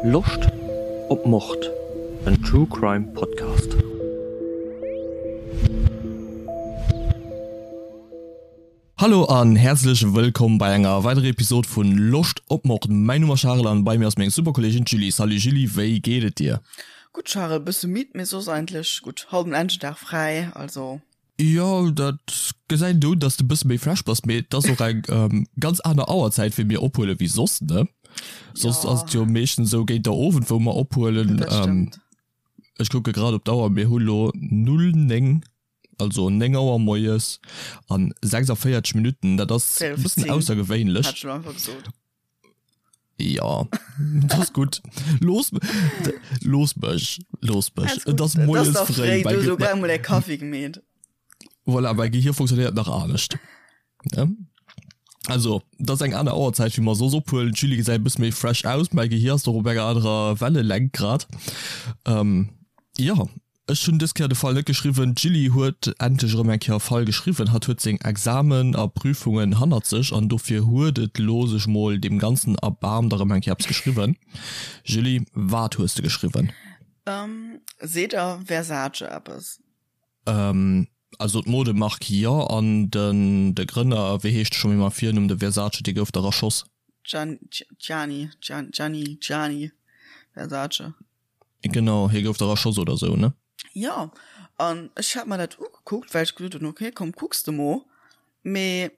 Loscht op Mord? En True Crime Podcast. Hallo an häerzlech wëllkomm bei enger weiderer Episode vun Loscht op Mord. Mäin Numm ass Charel an bei mir ass meng super Kolleegin d'Julie. Salut Julie, wéi geet et dir? Gutt Charel, bësse midd, mee soss eigentlech gutt. Haut en Engedag fräi, also. Jo, dat gesäit een un, dass de bësse méi fresh bass, mee et ass och eng ganz aner Auerzäit wéi mir ophuelen wéi soss, ne? Soss ass et jo meeschtens esou géint der Owend wou mer ophuelen. Dat stëmmt. Ech kucke grad op d'Auer, mir hu lo 0, 9, also 9 Auer moies an 46 Minutten. Dat ass e bëssen aussergewéinlech. Hat ech lo einfach gesot. Ja, dat ass gutt. Looss, looss mech, looss mech. Et ass moies fréi. Du hues elo grad emol däi Kaffi gemeet. Voilà, mäi Gehir funktionéiert nach anescht. Ne? Also, dat ass eng aner Auerzäit, wéi mer soss ophuelen. D'Julie gesäit e bësse méi fresh aus. Mäi Gehir ass doch op enger anerer Wellelängt grad. Ähm, jo. Ech hunn dës Kéier de Fall net geschriwwen. D'Julie huet endlech erëm eng Kéier e Fall geschriwwen. Hatt huet seng Examen a Prüfungen hannert sech an dofir huet et lo sech mol deem Ganzen erbaarmt a rëm eng Kéier eppes geschriwwen. Julie, wat hues de geschriwwen? Seet der Versace eppes? Also d'Modemark jo, an den de Grënner, wéi heescht e scho méi mam Virnumm, de Versace, dee gouf dach erschoss. Gianni, Gianni, Gianni, Gianni Versace. Genau, hie gouf dach erschoss oder sou, ne? Jo, an ech hat mer dat ugekuckt, well ech gesot hunn, ok, komm kucks de mo. Mee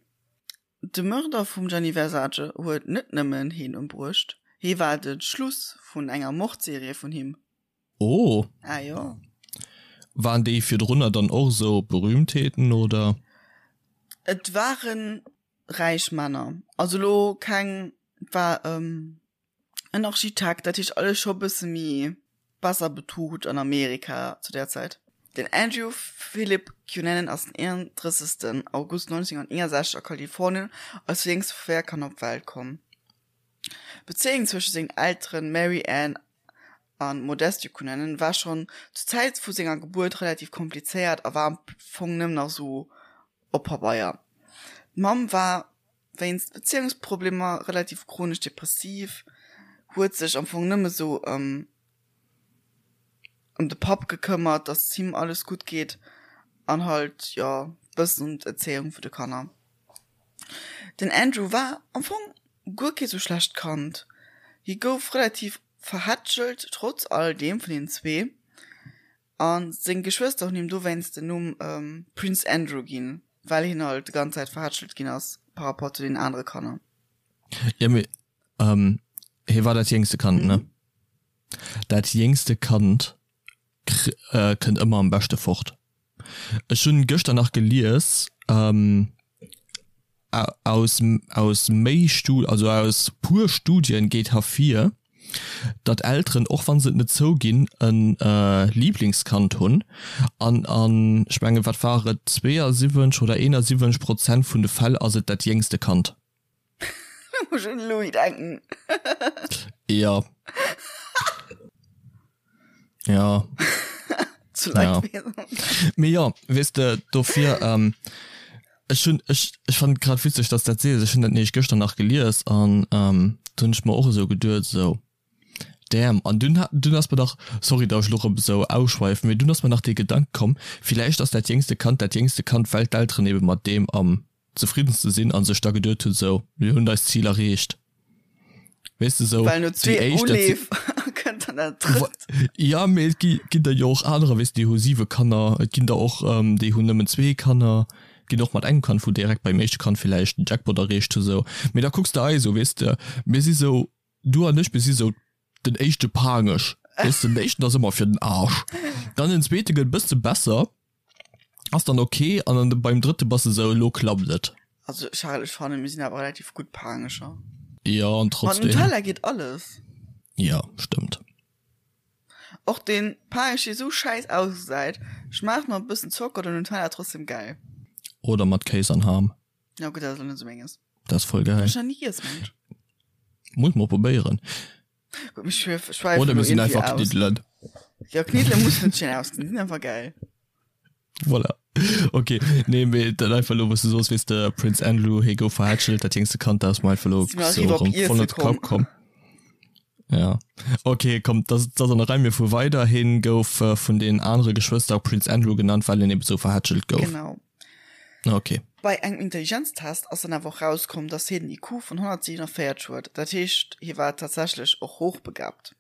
de Mörder vum Gianni Versace huet net nëmmen hien ëmbruecht, hie war de Schluss vun enger Mordserie vun him. Oh! Ah jo. Waren déi virdrunner dann och esou Berühmtheeten, oder? Et ware räich Männer, also elo keng, et war. En Architekt, dat heescht alles scho bësse méi besser betucht an Amerika zu där Zäit. Den Andrew Philip Cunanan ass den 31. August 1961 a Kalifornien als jéngst vu 4 Kanner op d'Welt komm. D'Bezéiung zwësche sengen Elteren Mary Ann a Modesto Cunanan war schonn zur Zäit vu senger Gebuert relativ komplizéiert a war am Fong nëmmen nach sou op Pabeier. D'Mamm war wéinst Bezéiungsproblemer relativ chronesch depressiv, huet sech am Fong nëmme sou ëm ëm de Papp gekëmmert, dass et him alles gutt geet an halt jo bëssen ëm d'Erzéiung vu de Kanner. Den Andrew war am Fong guer kee sou schlecht Kand, hie gouf relativ verhätschelt trotz all deem vun den zwee. A seng Geschwëster hunn him dowéinst den Numm Prince Andrew ginn, well hien halt déi ganz Zäit verhätschelt ginn ass par rapport zu den anere Kanner. Jo, mee hie war dat jéngste Kand, ne? Dat jéngste Kand kënnt ëmmer am beschte fort. Ech hunn gëschter nach gelies, aus aus méi Stu also aus puer Studien geet hervir, datt Elteren, och wann se et net zouginn, e Liblingskand hunn an an ech mengen wat war et 72 oder 71 Prozent vun de Fäll ass et dat jéngste Kand. Da muss ech un de Louis denken. Jo. Ja. Zu Leidwesen. Ja. Mee jo, weess de, dofir, ähm, ech hunn, ech, ech fannen et grad witzeg, dass dat sees. Ech hunn dat nämlech gëschter nach gelies an, ähm, do hunn ech mer och esou geduet, esou, damn. An dunn hat, dunn ass mer dach, sorry, dass ech elo erëm esou ausschweifen, mee dunn ass mer nach dee Gedanke komm, villäicht ass dat jéngste Kand dat jéngste Kand, well d'Elteren ebe mat deem am zefriddenste sinn a sech da geduet hunn, esou, mir hunn eist Zil erreecht. Weess de, esou Well no déi zwee éischt, dat si. Uleef kënnt dann dat drëtt. Ja, mee et gi ginn der jo och anerer, weess de, déi hu siwe Kanner, et ginn der och, déi hunn nëmmen zwee Kanner, ginn och mat engem Kand, wou direkt beim éischte Kand villäicht den Jackpot erreecht hu sou. Mee da kucks de eis u, weess de, mir si sou, du an ech, mir si sou den éischte Paangech, weess de, den éischten ass ëmmer fir den Arsch, dann den zweete gëtt e bësse besser, Ass dann ok an dann beim drëtte bass de sou, elo klappt et. Also Charel, ech fannen mir sinn awer relativ gutt Paangecher. Jo an Mat trotzdem. Nutella geet alles. Jo stëmmt. Och deen Paangesch dee sou schäiss ausgesäit, schmaacht mat e bëssen Zocker oder Nutella trotzdem gäil. Oder mat Kéis an Ham. Ja gutt, dat ass elo net sou menges. Dat ass voll gäil. Ech nach ni giess, mengen ech. Muss mol probéieren. Gutt, mir schwäifen Oder elo mir sinn iergendwéi einfach aus. Kniddelen. Jo, Kniddele mussen net schéin ausgesinn, déi sinn einfach gäil. Voilà. Ok, nee, mee dat einfach elo, wou s du soos, weess de, Prince Andrew, hie gouf verhätschelt, dat jéngste Kand, dat ass mer einfach elo Si mer sou eriwwer op erëm voll Iesse an de Kapp komm. komm. Ja. Ok, komm, dat ass an der Rei. Mir fuere weider. Hien gouf vun den anere Geschwëster Prince Andrew genannt, well en eben esou verhätschelt gouf. Genau. Ok. Bei engem Intelligenztest ass dann awer och rauskomm, dass hien en IQ vun 147 huet. Dat heescht, hie war tatsächlech och hochbegabt.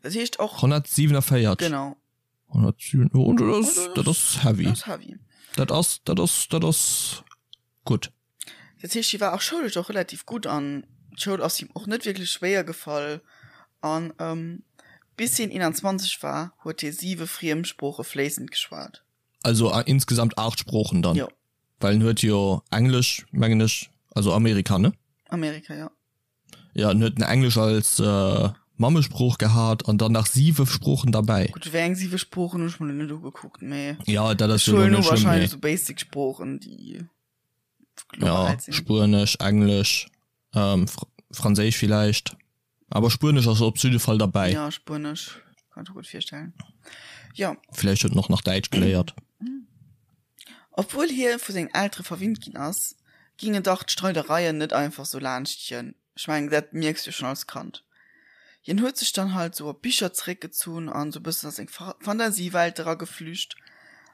Dat heescht och. 147? Genau. 107, oh, dat ass, dat ass heavy. Dat ass heavy. Dat ass, dat ass, dat ass gutt. Dat heescht, hie war och schoulesch och relativ gutt an d'Schoul ass him och net wierklech schwéier gefall. An bis hien 21 war, huet hie siwe Friemsprooche fléissend geschwat. Also insgesamt 8 Sproochen dann? Jo. Well en huet jo Englesch, mengen ech, also Amerika, ne? Amerika, jo. Jo, en huet Englesch als Mammesprooch gehat an dann nach siwe Sproochen derbäi. Gutt, wéi eng siwe Sproochen hunn ech mer lo net ugekuckt, mee Jo, dat ass ech jo lo huelen net u schlëmm, wahrscheinlech mee. esou basic Sproochen, déi global Ja, sinn. Spuenesch, Englesch, Franséisch villäicht, awer Spuenesch ass op jidde Fall derbäi. Ja, Spuenesch kann ech mer gutt virstellen, jo. Villäicht huet en och nach Däitsch geléiert. Obwuel hie vu sengen Eltere verwinnt ginn ass, gingen dach d'Streidereien net einfach sou laanscht hien. Ech mengen, dat mierks du schonn als Kand. Hien huet sech dann halt sou op Bicher zeréckgezunn an sou bëssen a seng Fantasiewelt erageflücht.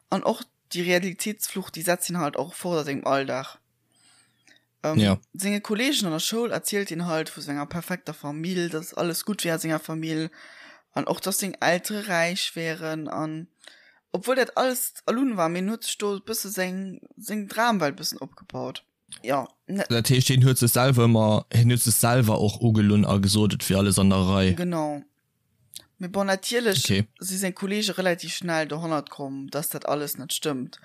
An och déi Realitéitsflucht, déi setzt hien halt och fort a sengem Alldag. Ja. Senge Kolleegen an der Schoul erzielt hien halt vu senger perfekter Famill, dass alles gutt wär a senger Famill an och dass seng Eltere räich wären an obwuel dat alles erlunn war, mee en huet sech do e bësse seng seng Dramwelt bëssen opgebaut. Jo. Dat heescht hien huet sech selwer ëmmer, hien huet sech selwer och ugelunn a gesot et wier alles an der Rei. Genau. Mee bon, natierlech Okay. si seng Kolleege relativ schnell dohannert komm, dass dat alles net stëmmt.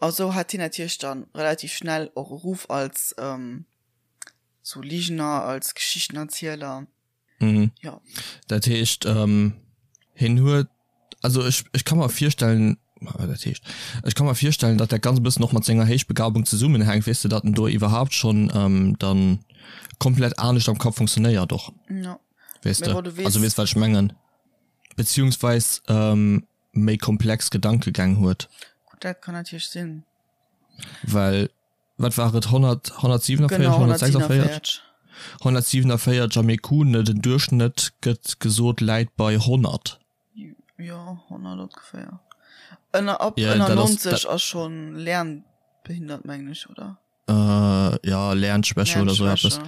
A sou hat hien natierlech dann relativ schnell och e Ruff als sou Ligener, als Geschichtenerzieler. Mhm. Jo. Dat heescht, hien huet, also ech, ech ka mer virstellen, dat heescht, ech ka mer virstellen, datt dat ganz e bëssen och mat senger Héichbegabung zesummenhänkt, weess de, datt en do iwwerhaapt schonn dann komplett anescht am Kapp funktionéiert och. Jo. Weess de, also weess wat ech mengen, beziehungsweis méi komplex Gedankegäng huet. Gutt, dat kann natierlech sinn. Well wat war et, 100, 147, Genau, 146? 147. 147 am IQ, ne, den Duerchschnëtt gëtt gesot läit bei 100. Jo, 100 ongeféier. Ënner, ab Ja, ënner dat ass, 90 dat. ass schonn lernbehindert, mengen ech, oder? Äh, ja, Lernschwäche oder so eppes.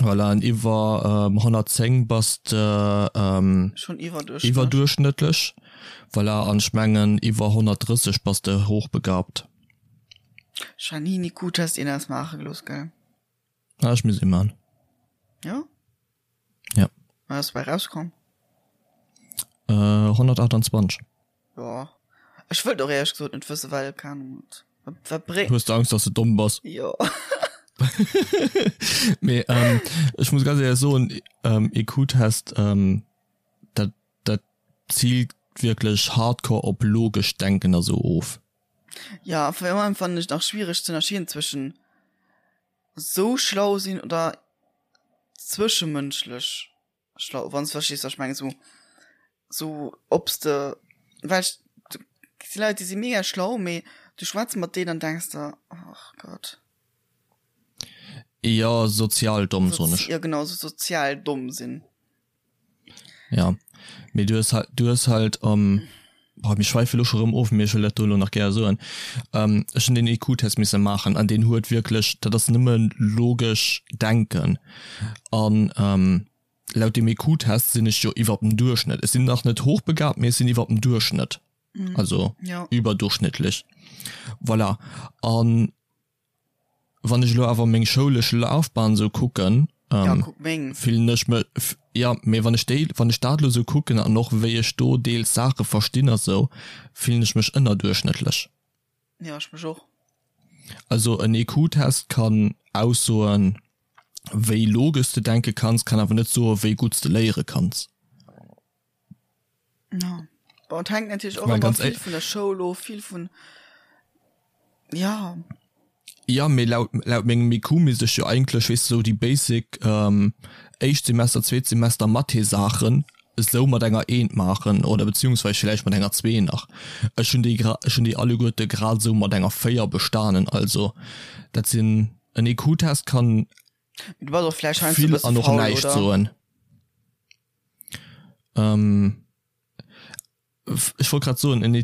Voilà, an iwwer ähm, 110 bass de ähm, Schon iwwerdurchschnëttlech. iwwerdurchschnëttlech. Voilà, an ech mengen iwwer 130 bass de hochbegabt. Janine, gut, dass een das maache gelooss, gell? Ah, ech muss ee man. Ja? Ja. Wat ass dobäi rauskomm? Äh, 128. Jo. Ech wëllt och éierlech gesot net wëssen, well, keng Ahnung, wat, wat bréngt. Hues de Angst, dass de domm bass? Jo. Mee ähm, ech muss ganz éierlech soen, ähm, IQ-Test, ähm, dat, dat ziilt wierklech hardcore op logescht Denken a sou of. Ja, vor allem fannen ech nach schwiereg ze ënnerscheeden zwëschen sou schlau sinn oder zwëschemënschlech schlau, wann s de verstees wat ech mengen, sou sou ob s de well ech si Leit déi si mega schlau, mee du schwätz mat deenen an denks der ach Gott. Jo, sozial domm soen ech. Jo genau, sou sozial domm sinn. Ja, mee du hues halt, du hues halt, ähm, boah, mir schweife lo scho rëm of, mee ech wëll dat do lo nach gär soen. Ähm, ech hunn deen IQ-Test misse maachen an deen huet wierklech, dat ass nëmme logesch Denken. An ähm, laut deem IQ-Test sinn ech jo iwwer dem Duerchschnëtt. Ech sinn nach net hochbegabt, mee ech sinn iwwer dem Duerchschnëtt, also Ja. überdurchschnittlich. Voilà. An Wann ech elo awer meng schoulesch Lafbahn esou kucken, Ja, kuck meng. fillen ech mech, jo, mee wann ech déi, wann ech dat elo esou kucken an och wéi ech do deels Saache verstinn a sou, fillen ech mech ënnerduerchschnëttlech. Jo, ech mech och. Also en IQ-Test kann aussoen, wéi logesch s de denke kanns, kann awer net soen, wéi gutt s de léiere kanns. Ja. Bon, et hänkt natierlech och Mä ëmmer ganz vill éi vun der Schoul of, vill vun, ja. Ja, mee laut, laut mengem IQ misst ech jo eigentlech, weess de, sou déi basic éischt Semester, zweet Semester Mathé-Saachen esou mat enger Eent maachen oder beziehungsweise villäicht mat enger Zwee nach. Ech hunn déi gra, ech hunn déi alleguerte grad esou mat enger 4 bestanen. Also dat sinn, en IQ-Test kann Du bass och vläicht heiansdo e vill bësse an och faul, näischt oder? soen. Ech wollt grad soen, en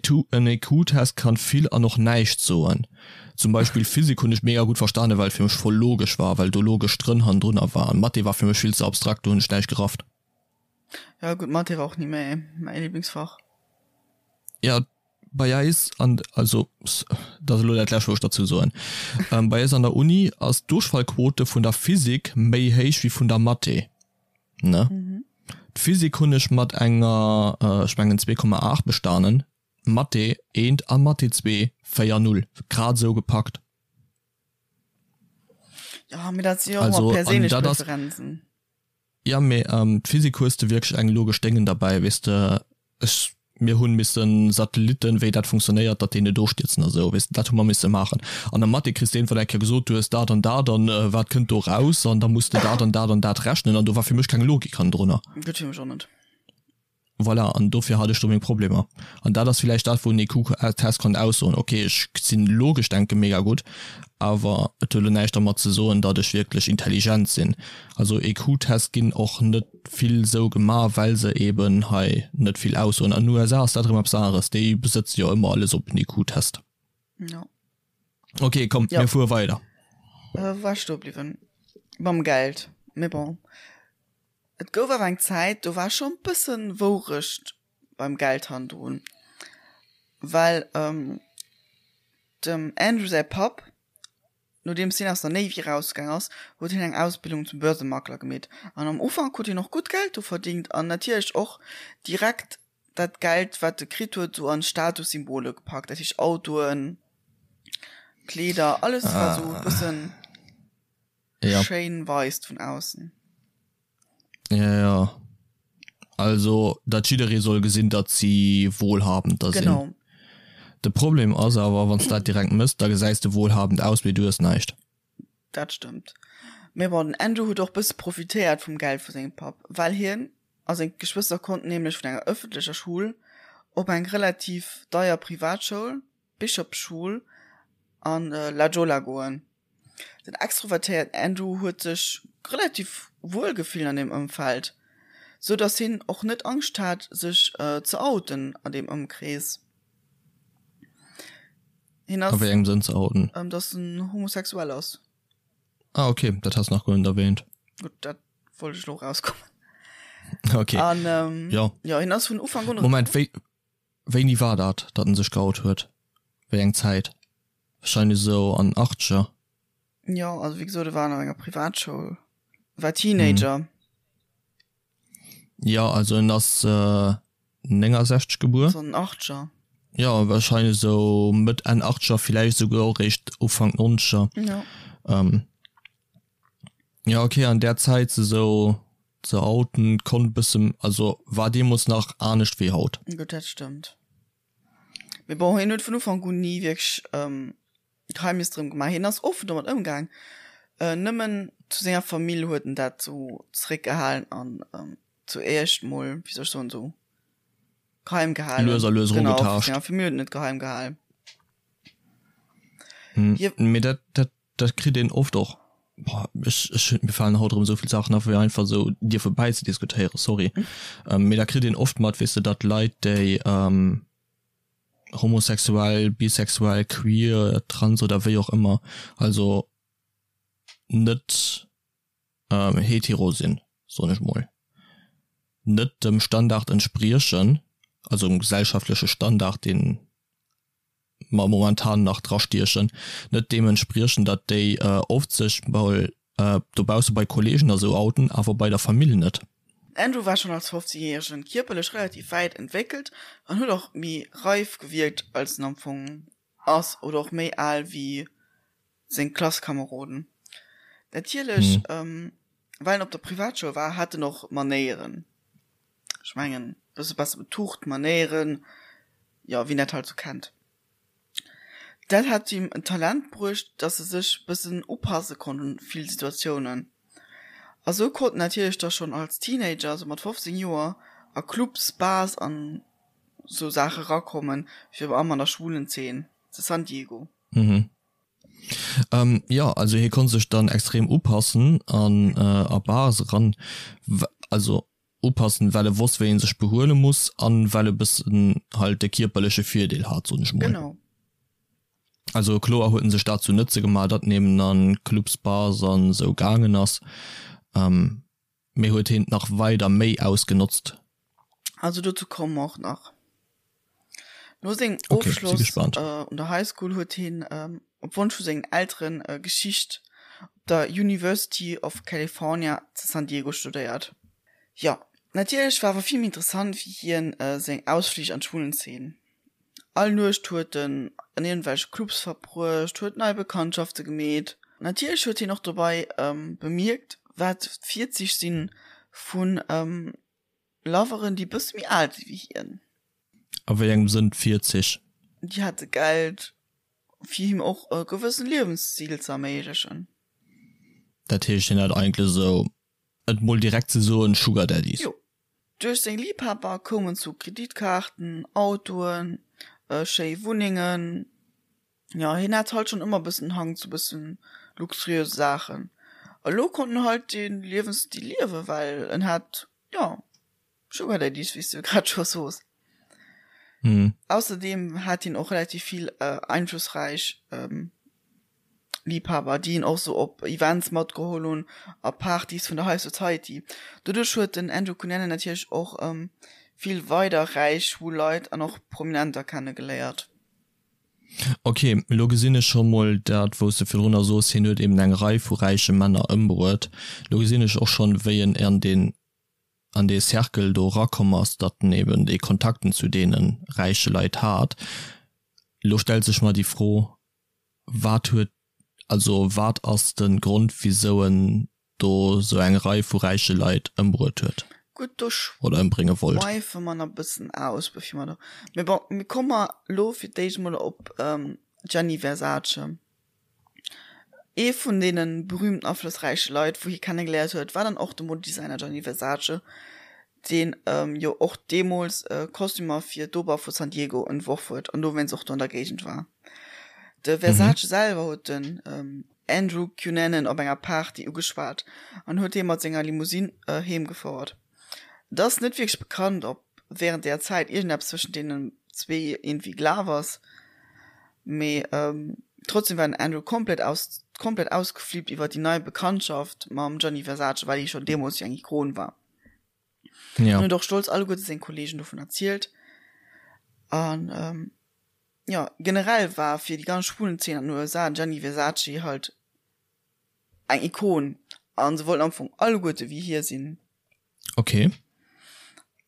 EQ-Test kann vill an och näischt soen. Zum Beispill Physik hunn ech mega gutt verstanen, well et fir mech voll logesch war, well do logesch Drënn hannendrunner war. An Mathé war fir mech vill ze abstrakt, do hunn ech näischt gerafft. Ja gutt, Mathé war och ni mäi mäi Lieblingsfach. Ja, bei eis an, also dat ass elo dat lescht wou ech derzou soen, bei eis an der Uni ass d'Duerchfallquote vun der Physik méi héich wéi vun der Mathé. Ne? Mhm. D'Physik hunn ech mat enger, ech mengen 2,8 bestanen, Mathé eent a Mathé zwee 4,0, grad esou gepackt. Ja, mee dat si jo och ëmmer perséinlech Preferenzen. Ja, mee d'Physik hues de wierklech eng logesch Déngen derbäi, weess de. Ech, mir hunn missen Satelliten, wéi dat funktionéiert, datt déi net ofstierzen a sou, weess de, dat hu mer misse maachen. An der Mathé kriss de iergendwann eng Kéier gesot, du hues dat an dat an wat kënnt do raus an da muss de dat an dat an dat rechnen an do war fir mech keng Logik hannendrunner. Gutt, fir mech och net. Voilà, an dofir hat ech do meng Problemer. An dat ass villäicht dat, wou en EQ-Test kann aussoen, ok, ech sinn logesch denke mega gutt, awer et huet elo näischt dermat ze soen, datt ech wierklech intelligent sinn. Also EQ-Test ginn och net vill sou gemaach, well se eben hei net vill aussoen. An den USA ass dat erëm eppes aneres, déi besëtze jo ëmmer alles op en EQ-Test. Jo. Ok, komm, Ja. mir fuere weider. Äh, wou war ech stoe bliwwen? Mam Geld. Mee bon. Et gouf awer eng Zäit, do war scho bëssen Wourecht beim Geld hannendrun, well dem Andrew säi Papp, nodeems hien aus der Navy erausgaang ass, huet hien eng Ausbildung zum Börsemakler gemeet an am Ufank huet hien och gutt Geld do verdingt an natierlech och direkt dat Geld wat e kritt huet sou an Statussymbole gepackt, dat heescht Autoen, Kleeder, alles wat sou e bëssen. Ja. Schéin weist vun aussen. Ja, ja. Also, datt jidderee soll gesinn, datt si wohlhabend da sinn. Genau. De Problem ass awer, wann s dat direkt mëss, da gesäis de wohlhabend aus, mee du hues näischt. Dat stëmmt. Mee bon, den Andrew huet och bësse profitéiert vum Geld vu sengem Papp, well hien a seng Geschwëster konnten nämlech vun enger ëffentlecher Schoul op eng relativ deier Privatschoul, d'Bishop School, an La Jolla goen. Den extrovertéierten Andrew huet sech relativ wuel gefillt an deem Ëmfeld, sou dass hien och net Angscht hat sech ze outen an deem Ëmkrees. Hien ass. A wéi engem Sënn ze outen? Dass en homosexuell ass. Ah ok, dat has nach guer net erwähnt. Gutt, dat wollt ech lo rauskommen. Ok. An jo. Jo, hien ass vun Ufank un. Moment, wéi Wéini war dat, datt en sech geout huet? Wéi eng Zäit? Wahrscheinlech esou an den Achtzeger. Jo, also wéi gesot, e war an enger Privatschoul, war Teenager. Jo, also en ass 69 gebuer. Also an den Achtzeger. Jo, wahrscheinlech esou Mëtt, Enn Achtzeger, villäicht esouguer och eréischt Ufank Nonzeger. Jo. Jo, okay, an där Zäit esou ze outen konnt bëssen, also war deemols nach anescht wéi haut. Gutt, dat stëmmt. Mee bon, hien huet vun Ufank un ni wierklech Geheimnis drëm gemaach. Hien ass offen domat ëmgaang, nëmmen zu senger Famill huet en dat sou zeréckgehalen an zu éischt mol, wéi soll ech soen, sou geheim gehalen. Lues a lues Genau, vu erugetaascht. senger Famill huet en et geheim gehalen. Hie. Mee dat, dat Dat kritt een oft och, boah, ech, ech, mir falen haut erëm esou vill Saachen a fir einfach esou dierfe bäizediskutéieren, sorry. Mee da kritt een oft mat, weess de, datt Leit, déi homosexuell, bisexuell, queer, trans oder wéi och ëmmer, also net hetero sinn, soen ech mol, net dem Standard entspriechen, also dem gesellschaftleche Standard, deen mer momentan nach drastiechen, net deem entspriechen, datt déi oft sech mol dobausse bei Kollegen a sou outen, awer bei der Famill net. Andrew war schonn als 15 Järegen kierperlech relativ wäit entwéckelt an huet och méi reif gewierkt als en am Fong ass oder och méi al wéi seng Klasskameroden. Natierlech, well en op der Privatschoul war, hat en och Manéieren. Ech mengen, bësse besser betucht, Manéieren, jo, wien dat halt sou kennt. Dat hat him en Talent bruecht, dass e sech bëssen upasse konnt un vill Situatiounen. A sou konnt en natierlech da schonn als Teenager, sou mat 15 Joer, a Clubs, Bars an sou Saache rakommen, virun allem an der schwulen Zeen zu San Diego. Mhm. Ähm, jo, also hie konnt sech dann extrem upassen an a Bars eran, also. upassen, well e wosst wéi en sech behuele muss an well e bëssen halt de kierperleche Virdeel hat, soen ech mol. Genau. Also kloer huet en sech dat zu Nëtze gemaach, datt en eben an Clubs, Bars an esou gaangen ass, mee huet heen et nach weider méi ausgenotzt. Also dozou komme mer och nach. No sengem Okay, si Ofschloss gespannt. un der High School huet hien op Wonsch vu sengen Elteren Geschicht op der University of California zu San Diego studéiert. Jo, natierlech war awer vill méi interessant fir hien seng Ausflich an d'Schwulenzeen. All Nuecht huet en an iergendwelche Clubs verbruecht, huet nei Bekanntschafte gemeet. Natierlech huet hien och dobei bemierkt, wat d'Virzich si vu Loveren, déi bësse méi al si wéi hien. A wéi engem Sënn d'Virzich? Déi hate Geld, fir him och e gewëssen Liewensstil ze erméiglechen. Dat heescht, hien hat eigentlech esou, et mol direkt ze soen, Sugar Daddies? Jo. Duerch seng Liibhaber koum en zu Kreditkaarten, Autoen, schéi Wunnengen. Jo, hien hat halt schonn ëmmer bëssen Hang zu bëssen luxuriöse Saachen. Elo konnt en halt dee Liewensstil liewen, well en hat, jo, Sugar Daddies, wéi s de grad scho sos. Ausserdeem hat hien och relativ vill einflussräich Liebhaber, déi hien och sou op Events matgeholl hunn a Partys vun der High Society. Doduerch huet den Andrew Cunanan natierlech och vill weider räich schwul Leit an och Prominenter kennegeléiert. Ok, elo gesinn ech scho mol dat wou s de virdrunner soos, hien huet eben eng Rei vu räiche Männer ëmbruet. Elo gesinn ech och schonn wéi en an deen an dee Cercle do erakomm ass, datt en eben déi Kontakten zu deene räiche Leit hat. Elo stellt sech mer déi Fro, wat huet, also wat ass de Grond wisou en do sou eng Rei vu räiche Leit ëmbruet huet Gutt, do oder ëmbrénge wollt? schweife mer nach e bëssen aus, bevir mer do, mee bon, mir komme mer elo fir d'éischt emol op Gianni Versace. Ee vun deene berühmten aflossräiche Leit, wou hie kennegeléiert huet, war dann och de Modedesigner Gianni Versace, deen jo och deemools Kostümer fir d'Oper vu San Diego entworf huet an dowéinst och do an der Géigend war. De Versace selwer huet den Andrew Cunanan op enger Party ugeschwat an huet hie mat senger Limousine heem gefouert. Et ass net wierklech bekannt, ob wärend där Zäit iergendeppes zwëschent deenen zwee iergendwéi gelaf ass, mee trotzdem war den Andrew komplett aus komplett ausgeflippt iwwer déi nei Bekanntschaft mam Gianni Versace, well hie schonn deemools jo eng Ikon war. Ja. An huet och stolz alleguerte seng Kolleegen dovun erzielt. An jo, generell war fir déi ganz Schwulenzeen an den USA den Gianni Versace halt eng Ikon an se wollten am Fong alleguerte wéi hie sinn. Ok.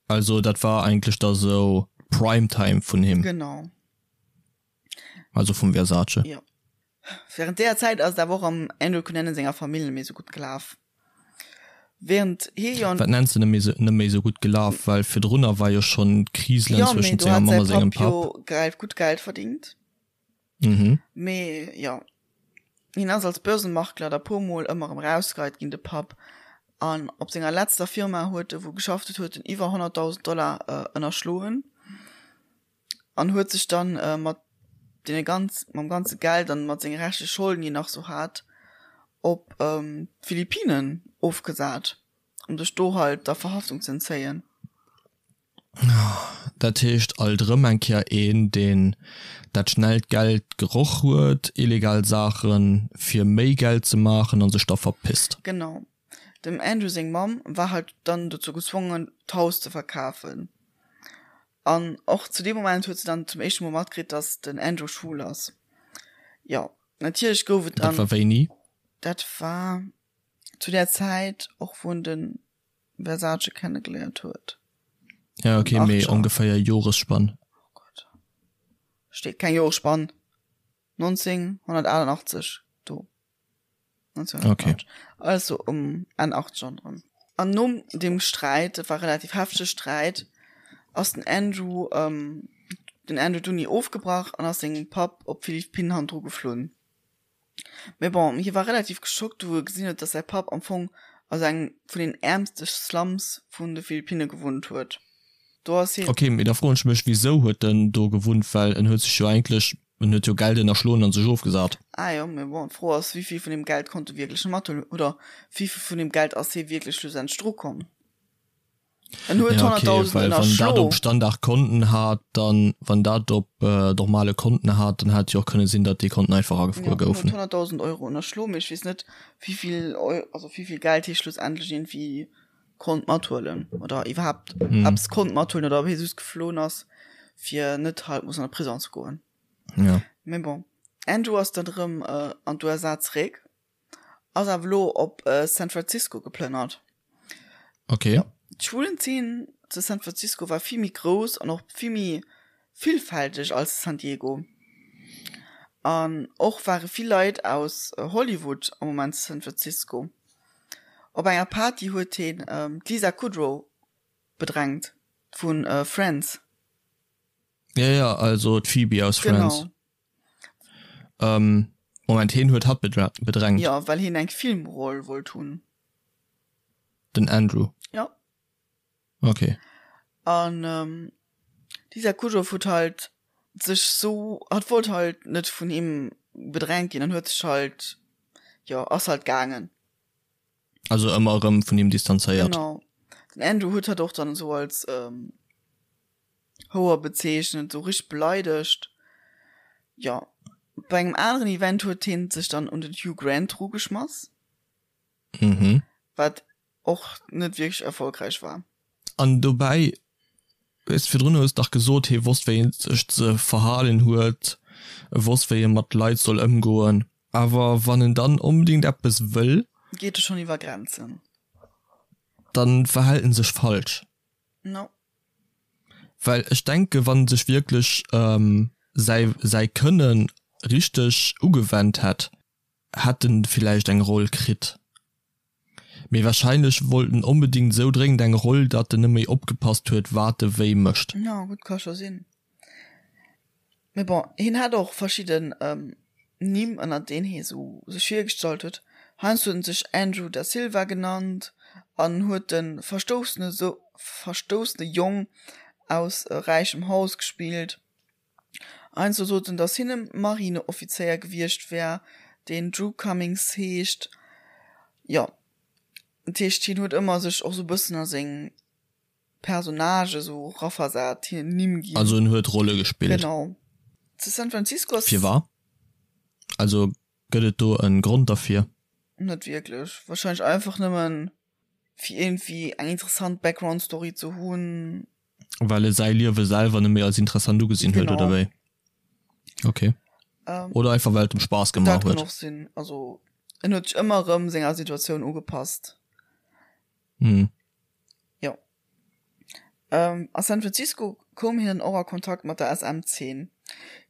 Also dat war eigentlech da sou Prime Time vun him. Genau. Also vum Versace. Jo. Während deeër Zäit ass et awer och am Andrew Cunanan senger Famill net méi sou gutt gelaf. Während hie jo. Wat nenns de net méi sou, net méi sou gutt gelaf? Well virdrunner war jo schonn d'Kriselen Jo, mee zwëschent do senger hat Mamm säi a sengem Papp jo Papp. geil gutt Geld verdingt. Mhm. Mee jo, hien ass als Börsenmakler da puer mol ëmmer erëm rausgeheit ginn, de Papp. An op senger letzter Firma huet e wou geschafft huet, huet en iwwer 100.000 Dollar ënnerschloen an huet sech dann mat deene ganz, mam ganze Geld an mat senge reschtleche Scholden, déi en nach sou hat, op d'Philippinen ofgesat, um sech do halt der Verhaftung ze entzéien. Dat heescht alt erëm eng Kéier een, deen dat schnellt Geld geroch huet, illegal Saachen fir méi Geld ze maachen a sech da verpisst. Genau. Dem Andrew seng Mamm war halt dann dozou gezwongen, d'Haus ze verkafen. An och zu deem Moment huet se dann zum éischte Mol matkritt, dass den Andrew schwul ass. Jo, natierlech gouf et dann. Dat war wéini? Dat war zu där Zäit och, wou en de Versace kennegeléiert huet. Ja ok, mee ongeféier Joresspann? Oh Gott, steet keng Joresspann. 1988 do. 1988. Okay. Also um Enn 80er erëm. An nom deem Sträit, dat war relativ heftege Sträit, ass den Andrew, ähm, den Andrew d'Uni ofgebrach an ass sengem Papp op d'Philippinen hannendru geflunn. Mee bon, hie war relativ geschockt, wou e gesinn huet, dass säi Papp am Fong a sou engem vun den äermste Slums vun de Philippinne gewunnt huet. Do ass hien. Ok, mee da froen ech mech, wisou huet en do gewunnt, well en huet sech jo eigentlech, en huet jo Geld ënnerschloen an sech ofgesat. Ah jo, mee bon, d'Fro ass, wéi vill vun deem Geld konnt e wierklech mathuelen oder wéi vill vun deem Geld ass hie wierklech schlussendlech drukomm? En huet Ja, okay, 100.000 well wann dat ënnerschlo. op Standardkonten hat, dann, wann dat op normale Konten hat, dann hätt jo och kënne sinn, datt déi Konten einfach Ja, agefruer en huet goufen. 100.000 Euro ënnerschlo, mee ech weess net, wéivill Eu-, also wéivill Geld hie schlussendlech iergendwéi konnt mathuelen oder iwwerhaapt eppes konnt mathuelen oder ob hie just geflohen ass, fir net halt mussen an de Prison ze goen. Ja. Mee bon, Andrew ass dann erëm an d'USA zeréck. Ass awer elo op San Francisco geplënnert. Okay. D'Schwulenzeen zu San Francisco war vill méi grouss an och vill méi villfälteg als San Diego. An och ware vill Leit aus Hollywood am Moment zu San Francisco. Op enger Party huet hien d'Lisa Kudrow bedrängt vu Friends. Ja, ja, also d'Phoebe aus Friends. Genau. Ähm, Moment, heen huet hatt bedrängt? Jo, well heen eng Filmroll wollt hunn. Den Andrew? Jo. Okay. An ähm, d'Lisa Kudrow huet halt sech sou, hatt wollt halt net vun him bedrängt ginn an huet sech halt, jo, ass halt gaangen. Also ëmmer erëm vun him distanzéiert. Genau. Den Andrew huet hatt och dann esou als ähm, Houer bezeechnet, sou richteg beleidegt. Jo, bei engem aneren Event huet hien sech dann un den Hugh Grant rugeschmass. Mhm. Wat och net wierklech erfolgräich war. An dobäi, weess, virdrun hues dach gesot, hie wosst wéi en sech ze verhalen huet, e wosst wéi e mat Leit soll ëmgoen. Awer wann en dann onbedéngt eppes wëll. Geet e schonn iwwer Grenzen. Dann verhält en sech falsch. No. Well ech denke wann en sech wierklech säi säi Kënne richteg ugewennt hätt, hätt en villäicht eng Roll kritt. Mee wahrscheinlech wollt en onbedingt esou dréngend eng Roll, datt en net méi opgepasst huet wat e wéi mécht. Jo gutt, ka scho sinn. Mee bon, hien hat och verschidden Nimm ënner deen hie sou sech virgestallt huet. Heiansdo huet en sech Andrew da Silva genannt an huet de verstoussene verstoussene Jong aus räichem Haus gespillt. Heiansdo sot en, datt hien e Marineoffizéier gewiescht wär, deen Drew Cummings heescht. Jo, dat heescht hien huet ëmmer sech och sou e bëssen a seng Personnage esou raversat, hinnen Nimm ginn. Also en huet Rolle gespillt. Genau. Zu San Francisco ass. Firwar? Also gëtt et do en Grond derfir? Net wierklech. Wahrscheinlech einfach nëmmen fir iergendwéi eng interessant Background Story ze hunn. Well e säi Liewe selwer net méi als interessant ugesinn huet, oder wéi? Okay. Oder einfach well et em Spaass gemaach Dat huet. kann och sinn. Also en huet sech ëmmer erëm senger Situatioun ugepasst. Mhm. Jo. Ähm, a San Francisco koum hien dann och a Kontakt mat der SM-Zeen.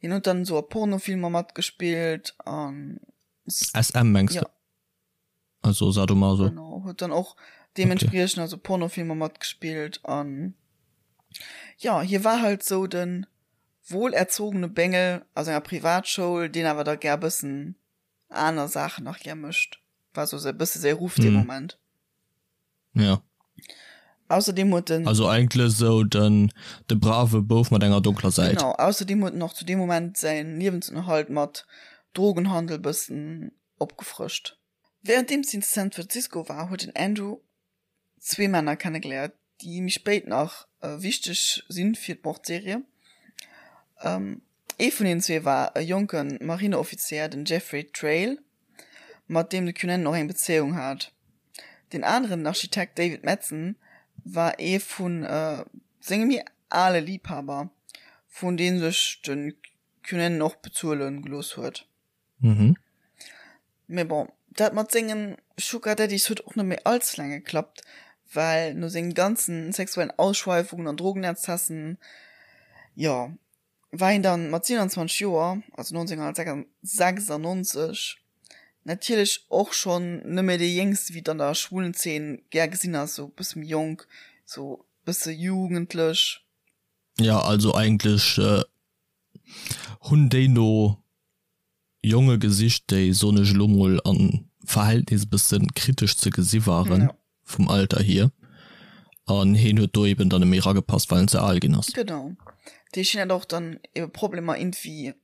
Hien huet dann esou a Pornofilmer matgespillt an. SM mengs Ja. de? Also Sadomaso. Genau, huet dann och deementspriechend also Pornofilmer matgespillt an jo, hie war halt sou de wohlerzogene Bengel aus enger Privatschoul, deen awer da gär bëssen aner Saachen nach gär mécht. War sou e bësse säi Ruff dee Moment. Ja. Ausserdeem huet en. Also eigentlech esou den de brave Bouf mat enger donkler Säit. Genau. Ausserdeem huet en och zu deem Moment säin Liewensënnerhalt mat Drogenhandel bëssen opgefrëscht. Wärenddeems hien zu San Francisco war, huet den Andrew zwee Männer kennegeléiert, déi méi spéit nach wichteg sinn fir d'Mordserie. Ee vun hinnen zwee war e jonke Marineoffizéier, den Jeffrey Trail, mat deem de Cunanan och eng Bezéiung hat. Deen aneren, den Architekt David Madson, war ee vu senge méi ale Liibhaber, vun deem sech de Cunanan och bezuele gelooss huet. Mhm. Mee bon, dat mat sengen Sugar Daddies huet och net méi all ze laang geklappt, well no sengen ganzen sexuellen Ausschweifungen an Drogenexzessen, jo, war hien dann mat 27 Joer, also 1996, natierlech och schonn net méi dee Jéngste, wéi et an der schwulen Zeen gär gesinn ass, sou bësse méi jonk, sou bësse jugendlech. Ja, also eigentlech hunn déi no Jonge gesicht, déi, soen ech elo mol, am Verhältnis e bësse kritesch ze gesi waren vum Alter hier. An heen huet do eben dann net méi eragepasst, well en ze al ginn ass. Genau. Dat heescht, hien hat och dann ebe Problemer iergendwéi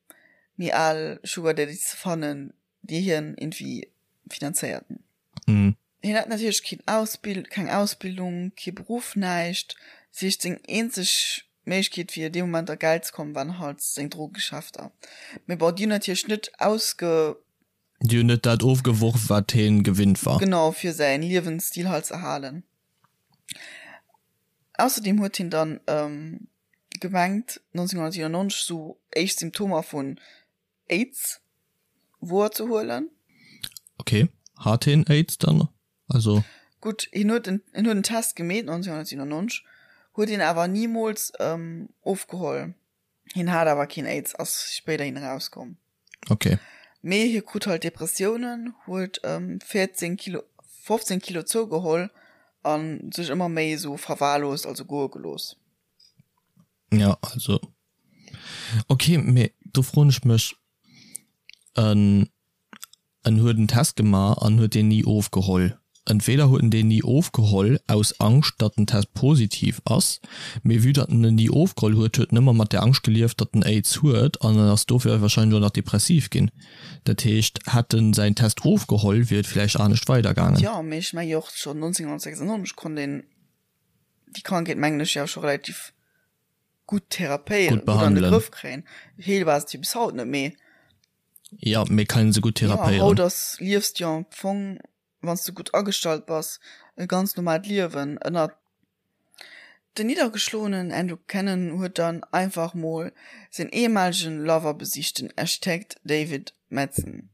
méi al Sugar Daddies ze fannen, déi hien iergendwéi finanzéierten. Hien hat natierlech keen Ausbild, keng Ausbildung, kee Beruff, näischt. Dat heescht, seng eenzeg Méiglechkeet fir dee Moment a Geld ze kommen, waren halt seng Drogegeschäfter. Mee bon, déi hunn natierlech net ausge. Déi hunn net dat ofgeworf, wat hien gewinnt war. Genau, fir säin Liewensstil halt ze erhalen. Ausserdeem huet hien dann gemengt, 1997 sou éischt Symptomer vun Aids wouer ze huelen. Ok, hat hien Aids dann? Also. Gutt, hien huet en, hien huet en Test gemeet 1997, huet hien awer nimools ofgeholl. Hien hat awer keen Aids, ass spéiderhin erauskomm. Ok. Mee hie krut halt Depressiounen, huet 14 Kilo, 15 Kilo zougeholl a sech ëmmer méi esou verwahrlost, also goe gelooss. Ja, also okay, mee do froen ech mech, en en huet en Test gemaach an huet deen ni ofgeholl. Entweder huet en deen ni ofgeholl aus Angscht, datt den Test positiv ass, mee vue datt en en ni ofgeholl huet, huet en ëmmer mat der Angscht gelieft, datt en Aids huet an en ass dofir wahrscheinlech och nach depressiv ginn. Dat heescht, hätt en säin Test ofgeholl, wier et villäicht anescht weidergaangen. Jo, mee ech menge jo och schonn 1996 konnt een déi Krankheet mengen ech jo scho relativ gutt therapéieren, gutt an de Grëff kréien. Heelbar ass et jo bis haut net, mee. Jo, mee kann een se gutt therapéieren. Jo, haut ass, liefs de jo am Fong, wann s de gutt agestallt bass, e ganz normaalt Liewen ënner. Den niddergeschloenen Andrew Cunanan huet dann einfach mol säin ehemaligen Lover besicht, den Architekt David Madson,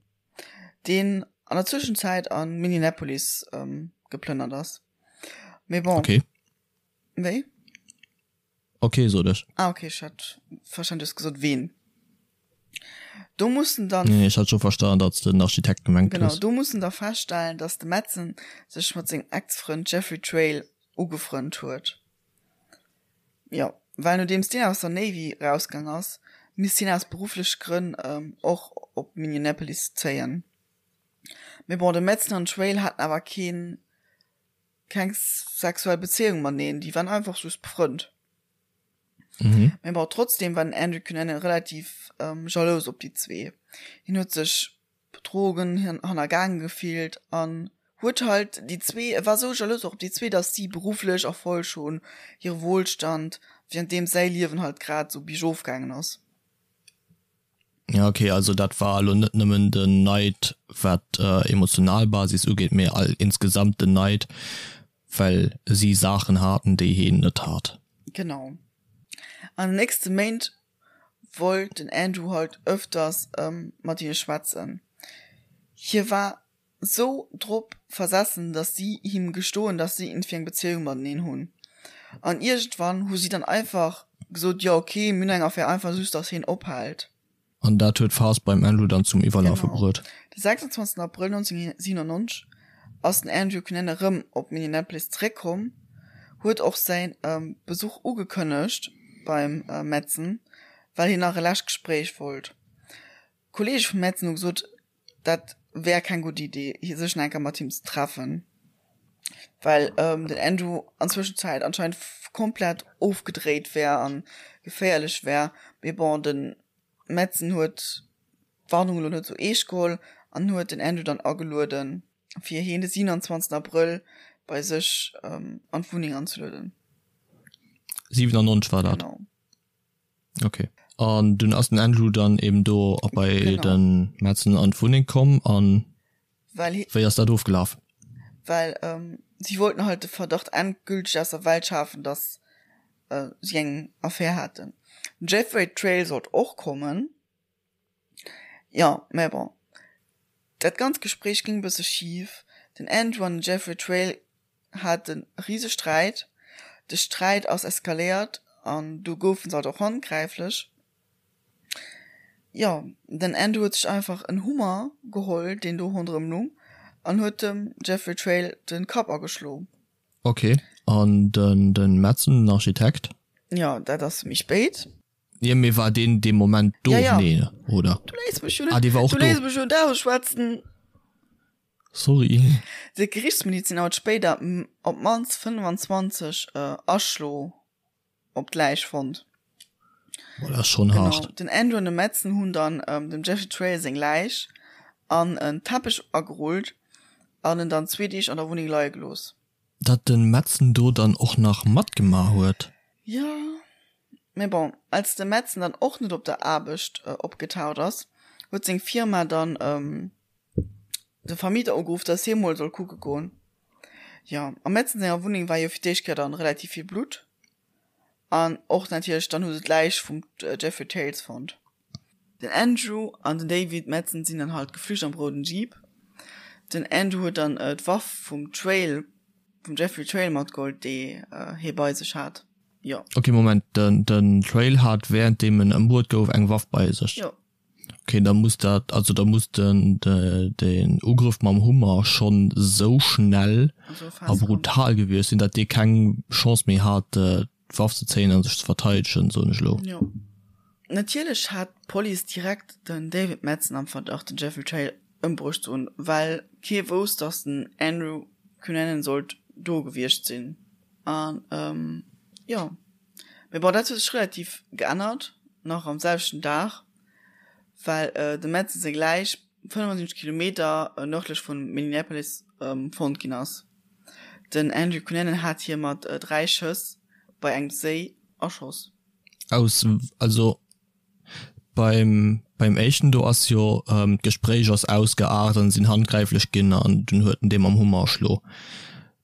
deen an der Zwëschenzäit a Minneapolis geplënnert ass. Mee bon. Okay. Wéi? Okay, sot ech. Ah, okay, ech hat verstan, du hues gesot ween. Do mussen dann. Nee, ech hat scho verstan, datt s de den Architekt gemengt hues. Genau, do mussen da feststellen, datt de Madsen sech mat sengem Ex-Frënd Jeffrey Trail ugefrënnt huet. Jo, well nodeems deen aus der Navy rausgaang ass, misst hien aus beruffleche Grënn och op Minneapolis zéien. Mee bon, de Madsen an den Trail haten awer keen keng sexuell Bezéiung mateneen, déi waren einfach just befrënnt. Mhm. Mee bon, trotzdem war den Andrew Cunanan relativ ähm, jalous op déi zwee. Hien huet sech betrogen, hien hannergaange gefillt an huet halt déi zwee, e war sou jalous och op déi zwee, datt si berufflech Erfolg hunn, hire Wohlstand, währenddeem säi Liewen halt grad sou biergof gaangen ass. Ja ok, also dat war elo net nëmmen den Neid wat emotional Basis ugeet, mee all insgesamt den Neid well si Saachen haten déi heen net hat. Genau. An den nächste Méint wollt den Andrew halt ëfters mat hinne schwätzen. Hie war sou drop versessen, dass si him gestoen, dass si iergendwéi eng Bezéiung mateneen hunn. An iergendwann hu si dann einfach gesot, jo ok, mir hunn eng Affär, einfach just, dass hien ophält. An dat huet d'Faass beim Andrew dann zum Iwwerlafe Genau. bruet. De 26 Abrëll 1997 ass den Andrew Cunanan erëm op Minneapolis zeréckkomm, huet och säi Besuch ugekënnegt beim Madsen, well hien nach e lescht Gespréich wollt. D'Kolleege vum Madsen hu gesot, dat wär keng gutt Idee, sech nach eng Kéier mat him ze treffen, well den Andrew an Zwëschenzäit anscheinend komplett ofgedréit wär a geféierlech wär. Mee bon, de Madsen huet d'Warnung elo net sou eescht geholl an huet den Andrew dann agelueden, fir hien de 27 Abrëll bei sech an d'Wunneng anzelueden. 97 war dat? Genau. Ok. An dunn ass den Andrew dann eben do a bei genau. den Madsen an d'Wunneng komm an well he, wéi ass dat ofgelaf? Well ähm, si wollten halt de Verdacht endgültig aus der Welt schafen, dass äh, si eng Affär haten. Den Jeffrey Trail sollt och kommen. Jo, mä bon. Dat ganzt Gespréich ging e bësse schif. Den Andrew an den Jeffrey Trail haten e rise Sträit. De Sträit ass eskaléiert an du goufen se halt och handgräiflech. Jo, den Andrew huet sech einfach en Hummer geholl, deen do ronderëm lung, an huet dem Jeffrey Trail de Kapp ageschlo. Ok, an den den Madsen, den Architekt? Jo, dat ass méi spéit. Jo, mee war deen dee Moment do? Ja, ja. Nee, oder? Du léiss mech jo net, Ah, dee war och du do. léiss mech jo net ausschwätzen. Sorry. De Gerichtsmediziner huet spéider op d'mannst 25 Aschlo op d'Läich fonnt. Boah, dat ass schonn Genau. hart. Den Andrew an de Madsen hunn dann dem Jeffrey Trail seng Läich an en Teppech agerullt. An en dann zwee Deeg an der Wunneng leie gelooss. Datt de Madsen do dann och nach matgemaach huet. Jo, mee bon, als de Madsen dann och net op der Aarbecht opgetaucht ass, huet seng Firma dann de Vermieter ugeruff, dass hie mol soll kucke goen. Jo, am Madsen senger Wunneng war jo fir d'éischt Kéier dann relativ vill Blutt. An och natierlech dann hu se d'Läich vum Jeffrey Tales fonnt. Den Andrew an den David Madsen sinn dann halt geflücht am rouden Jeep. Den Andrew huet dann d'Waff vum Trail, vum Jeffrey Trail matgeholl, déi hie bei sech hat. Jo. Ok, Moment, den Trail hat währenddeem en ëmbruet gouf eng Waff bei sech? Jo. Ok, da muss dat, also da muss den den Ugrëff mam Hummer schonn sou schnell a brutal gewiescht sinn, datt dee keng Chance méi hat d'Waff ze zéien a sech ze verteidegen, soen ech elo. Jo. Natierlech hat d'Police direkt den David Madsen am Verdacht den Jeffrey Trail ëmbruecht ze hunn, well kee wousst, datt den Andrew Cunanan sollt do gewiescht sinn. An jo. Mee bon, dat huet sech relativ geännert, nach am selwechten Dag, well dem Madsen seng Läich 75 Kilometer nërdlech vu Minneapolis fonnt ginn ass. Den Andrew Cunanan hat hie mat 3 Schëss bei engem Séi erschoss. Aus, also beim beim éischten do ass jo d'Gespréich ass ausgeaart an sinn handgräiflech ginn an dunn huet en dee mam Hummer erschlo.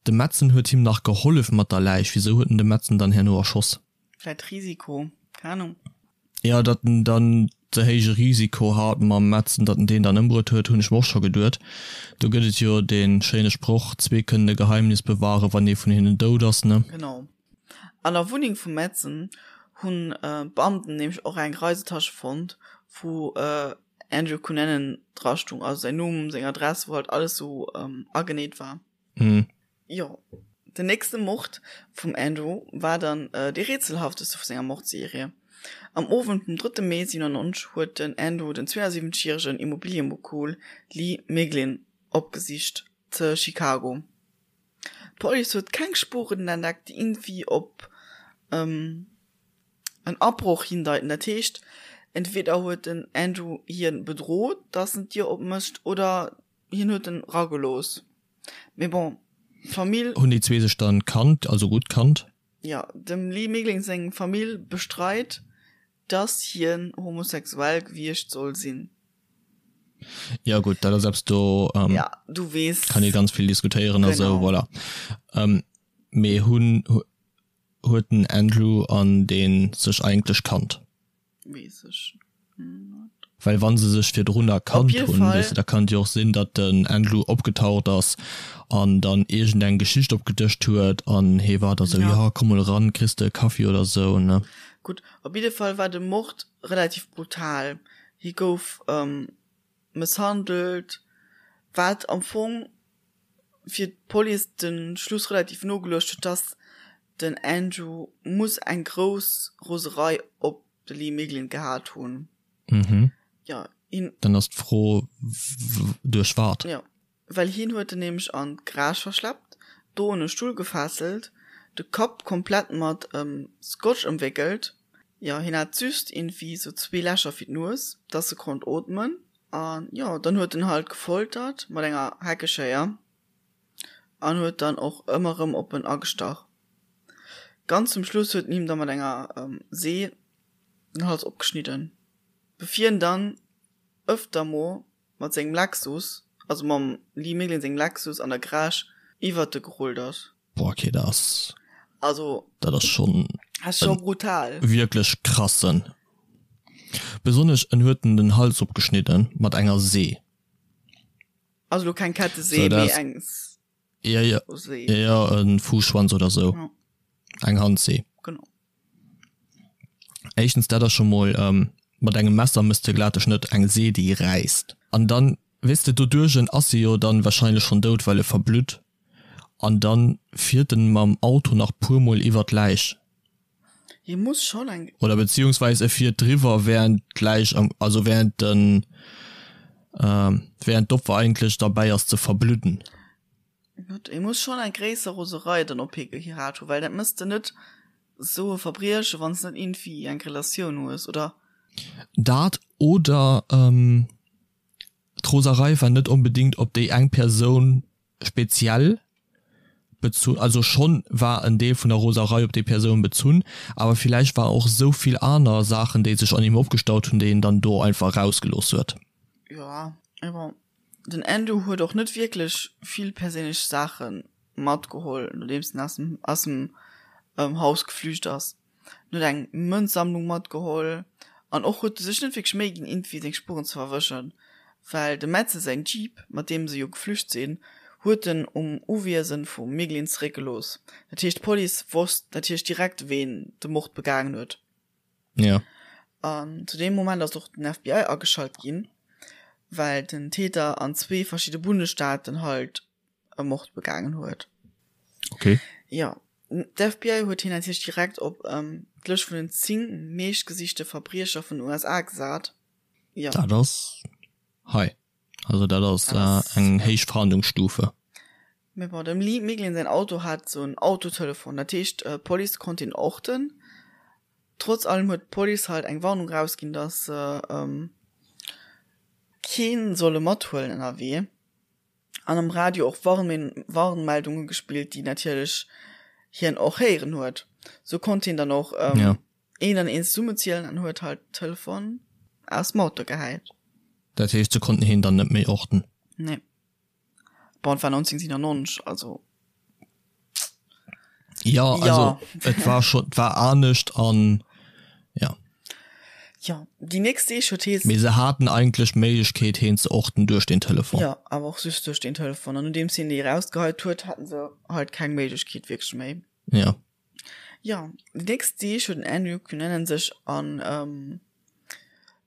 De Madsen huet him nach gehollef mat der Läich, wisou huet en de Madsen dann herno erschoss? Vläit Risiko, keng Ahnung. Jo, datt en dann ze héije Risiko hat mam Madsen, datt en deen dann ëmbruet huet, hunn ech mer och scho geduet. Do gëtt et jo dee schéine Sproch, Zwee kënnen e Geheimnis bewahren, wann ee vun hinnen dout ass, ne? Genau. An der Wunneng vum Madsen hunn d'Beamten nämlech och eng Reisetasche fonnt, wou Andrew Cunanan dra stung, also säin Numm, seng Adress, wou halt alles sou ageneet war. Mhm. Jo, den nächste Mord vum Andrew war dann dee rätselhafteste vu senger Mordserie. Am Owend vum drëtte Mee 97 huet den Andrew den 72 järegen Immobiliëmogul Lee Miglin opgesicht ze Chicago. D'Police huet keng Spuren entdeckt, déi iergendwéi op en Abroch hindeiten. Dat heescht, entweder huet den Andrew hien bedrot, dass en d'Dier opmécht, oder hien huet en ragelooss. Mee bon, d'Famill. Hunn déi zwee sech dann kannt, also gutt kannt? Jo, dem Lee Miglin seng Famill bestreit, dass hien homosexuell gewiescht soll sinn. Jo gutt, dat ass eppes do ja, du weess, kann ee ganz vill diskutéieren a sou, voilà. Mee hunn, huet den Andrew an dee sech eigentlech kannt? Weess ech net. Well wann se sech virdrunner kannt hunn, weess de, da kann et jo och sinn, datt den Andrew opgetaucht ass an dann iergend eng Geschicht opgedëscht huet an hee war da sou, jo komm mol eran, kriss de e Kaffi oder sou, ne? Gutt, op jidde Fall war de Mord relativ brutal. Hie gouf mësshandelt, wat am Fong fir d'Police de Schluss relativ no geluecht huet, dass den Andrew muss eng grouss Roserei op de Lee Miglin gehat hunn. Mhm. Jo, hien. Dann ass d'Fro, duerch wat? Jo, well hien huet en nämlech an d'Garage verschleppt, do un e Stull gefesselt, de Kapp komplett mat Scotch ëmwéckelt. Jo, hien hat just iergendwéi sou zwee Lächer fir d'Nues, dass e konnt ootmen. An jo, dann huet en halt gefoltert mat enger Heckeschéier an huet dann och ëmmer erëm op en agestach. Ganz zum Schluss huet en him da mat enger See den Hals opgeschnidden, bevir en dann ëfter mo mat sengem Lexus, also mam Lee Miglin sengem Lexus an der Garage iwwert e gerullt ass. Boah, okay, dat ass, Also, dat ass schon ass scho brutal. Wierklech krassen. Besonnesch en huet en den Hals opgeschnidden mat enger See. Also lo keng Kettesee, mee eng Ja, ja, See. Ja, en Fuusschwanz oder sou. Ja. Eng Handsee. Genau. Éischtens dat ass scho mol mat engem Messer mëss de glat e Schnëtt, eng See déi räisst. An dann, weess de, doduerch ass e jo dann wahrscheinlech schonn dout, well e verblutt. An dann fiert en mam Auto nach puer mol iwwer d'Läich. Hie muss schonn eng. Oder beziehungsweis e fiert driwwer während d'Läich am, also während den, während d'Opfer eigentlech derbäi ass ze verbludden. Gutt, hie muss schonn eng gréisser Roserei dann op hie gehat hunn, well dat mëss de net esou e Verbrieche wann s net iergendwéi eng Relatioun hues, oder? Dat oder d'Roserei war net onbedingt op déi eng Persoun. speziell bezunn, also schonn war en Deel vun der Roserei op déi Persoun bezunn, awer villäicht war och esou vill aner Saachen, déi sech an him opgestaut hunn, déi en dann do einfach erausgelooss huet. Jo, mee bon, den Andrew huet och net wierklech vill perséinlech Saache matgeholl, nodeems en aus dem aus dem Haus geflücht ass. En huet eng Mënzsammlung matgeholl an och huet e sech net wierklech Méi ginn, iergendwéi seng Spueren ze verwëschen, well dem Metze säin Jeep, mat deem se jo geflücht sinn, huet en um Uwiesen vum Miglin zeréckgelooss. Dat heescht, d'Police wosst natierlech direkt, ween de Mord begaangen huet. Ja. An zu deem Moment ass och den FBI ageschalt ginn, well den Täter an zwee verschidde Bundesstaaten halt e Mord begaangen huet. Okay. Ja. D'FBI huet hien natierlech direkt op ähm, d'Lëscht vun den 10 meeschtgesichte Verbriecher vun den USA gesat. Ja. Dat ass hei. Also dat ass dat ass, äh, eng ja. héich Fahndungsstufe. Mee bon, dem Lee Miglin säin Auto hat sou en Autotelefon, dat heescht äh, d'Police konnt hien orten. Trotz allem huet d'Police halt eng Warnung rausginn, dass se ähm, keen solle mathuelen ënnerwee. An am Radio och Warnmeldunge gespillt, déi natierlech hien och héieren huet. Sou konnt hien dann och ähm, een an een zesummezielen an huet halt Telefon aus dem Auto gehäit. Dat heescht, se konnten hien dann net méi orten? Nee. Bon, et war 1997, also. Ja, also et war schon, et war anescht an ja. Ja, déi nächst Deeg huet hee. Mee se haten eigentlech d'Méiglechkeet heen ze orten duerch den Telefon. Ja, awer och just duerch den Telefon. An nodeems hien déi erausgeheit huet, haten se halt keng Méiglechkeet wierklech méi. Ja. Ja, déi nächst Deeg huet den Andrew Cunanan sech an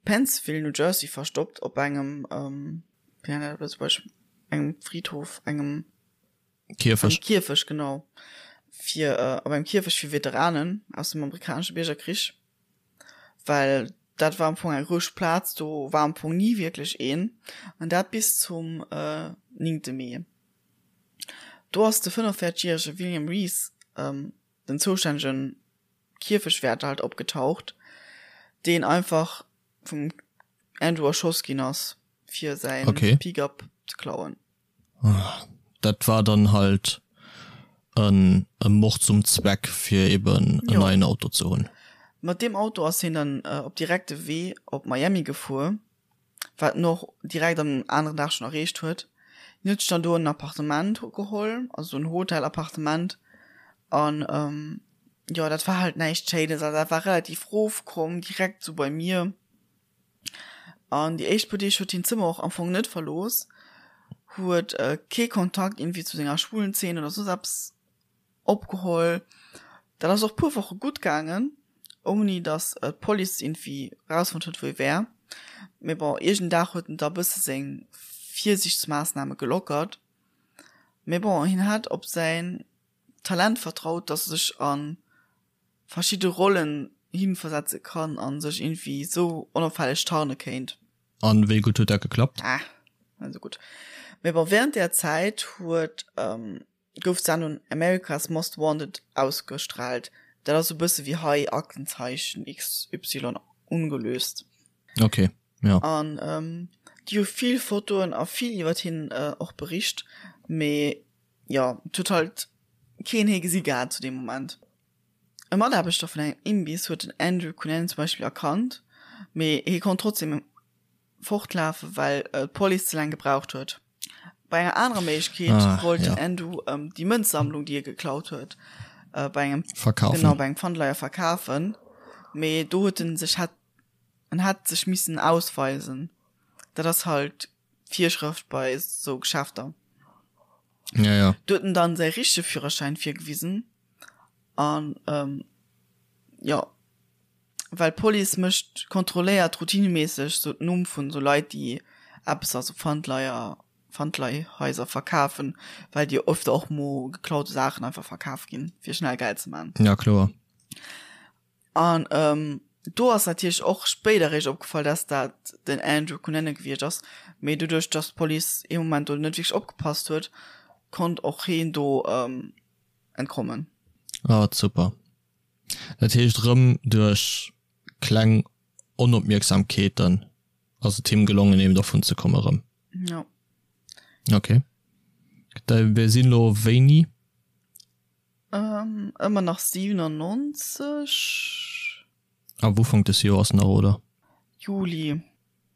Pennsville, New Jersey verstoppt op engem, wéi nennt een dat op Lëtzebuergesch, engem Friedhof, engem. Kierfech. Engem Kierfech, genau. Fir, op engem Kierfech fir Veteranen aus dem amerikanesche Biergerkrich. Well dat war am Fong eng roueg Plaz, do war am Fong ni wierklech een. An dat bis zum 9. Mee. Do ass de 45 järege William Rees, den zoustännege Kierfechwäerter halt opgetaucht, deen einfach vum Andrew erschoss ginn ass, fir säin Pickup ze klauen. Dat war dann halt en e Mord zum Zweck fir eben en neien Auto ze hunn. Mat deem Auto ass hien dann op direkte Wee op Miami gefuer, wat en och direkt am aneren Dag schonn erreecht huet. Hien huet sech dann do en Appartement geholl, also en Hotel-Appartement an jo dat war halt näischt Schéines, also dat war relativ rofkomm, direkt sou bei mir. An déi éischt puer Deeg huet hien d'Zëmmer och am Fong net verlooss, huet kee Kontakt iergendwéi zu senger schwulen Zeen oder soss eppes opgeholl. Dat ass och puer Woche gutt gaangen, ouni datt d'Police iergendwéi rausfonnt huet, wou e wär. Mee bon, iergend Dag huet en da bësse seng Virsiichtsmaassname gelockert. Mee bon, hien hat op säin Talent vertraut, datt e sech a verschidde Rollen hinversetze kann an sech irgendwie sou onopfälleg tarne kéint. An wéi gutt huet dat geklappt? Ah, net sou gutt. Mee bon, während där Zäit huet gouf d'Sendung America's Most Wanted ausgestrahlt. Dat ass sou bësse wéi hei Aktenzeichen XY ungelöst. Ok, ja. An déi hu vill Fotoen a vill iwwert hien och bericht, mee jo, et huet halt keen hie gesi gehat zu deem Moment. E Mataarbechter vun engem Imbiss huet den Andrew Cunanan zum Beispill erkannt, mee hie konnt trotzdeem fortlafen, well d'Police ze laang gebraucht huet. Bei enger anerer Méiglechkeet ah, wollt den ja. Andrew ähm, déi Mënzsammlung, déi e geklaut huet, äh, bei engem verkaufen. Genau, bei engem Pfandleier verkafen. Mee do huet en sech hat en hat sech missen ausweisen. Dat ass halt Virschrëft bei sou Geschäfter. Ja, ja. Do huet en dann säi richtege Führerschäin virgewisen an ähm, jo, well d'Police mécht, kontrolléiert routineméisseg sou d'Numm vun sou Leit, déi eppes a sou Pfandleier, Pfandleihhaiser verkafen, well déi öfter och mo geklaute Saachen einfach verkaf ginn, fir schnell Geld ze man. Ja, kloer. An do ass natierlech och spéider eréischt opgefall, dass dat den Andrew Cunanan gewiescht ass. Mee doduerch, dass d'Police ee Moment do net wierklech opgepasst huet, konnt och heen do entkommen. Ah, super. Dat heescht, erëm duerch kleng Da mir sinn elo wéini? Ähm, ëmmer nach 97. Am Ufank des Joers nach, oder? Juli.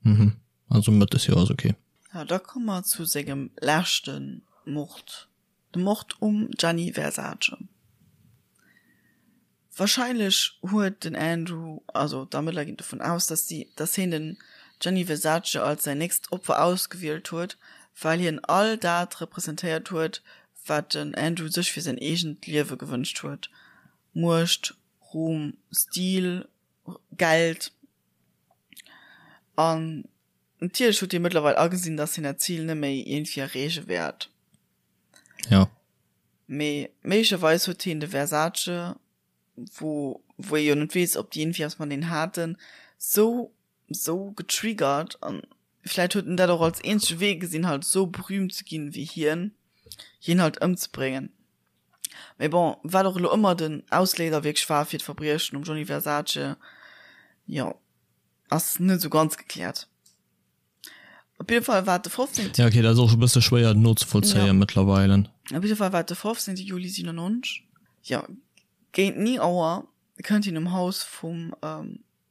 Mhm, also Mëtt des Joers, okay. Ja, da komme mer zu sengem leschte Mord, de Mord um Gianni Versace. Warscheinlech huet den Andrew, also d'Ermëttler ginn dovun aus, dass si, dass hien den Gianni Versace als säin nächst Opfer ausgewielt huet, well hien all dat representéiert huet, wat den Andrew sech fir säin eegent Liewe gewënscht huet, Muecht, Ruhm, Stil, Geld. An natierlech huet hie mëttlerweil agesinn, dass hien dat Zil net méi iergendwéi erreeche wäert. Ja. Mee méiglecherweis huet hien de Versace, wou wou ee jo net weess, ob déi iergendwéi eppes mateneen haten, sou sou getriggert an vläit huet en dat och als eenzege Wee gesinn, halt sou berühmt ze ginn wéi hien, hien halt ëmzebréngen. Mee bon, wat och elo ëmmer den Ausléiser wierklech war fir d'Verbriechen um Gianni Versace, jo, ass net sou ganz gekläert. Op jidde Fall war et de 15. Ja, okay, dat ass och e bësse schwéier nozevollzéien Ja. mëttlerweile. Op jidde Fall war et de 15. Juli 97, jo, géint 9 Auer kënnt hien um Haus vum.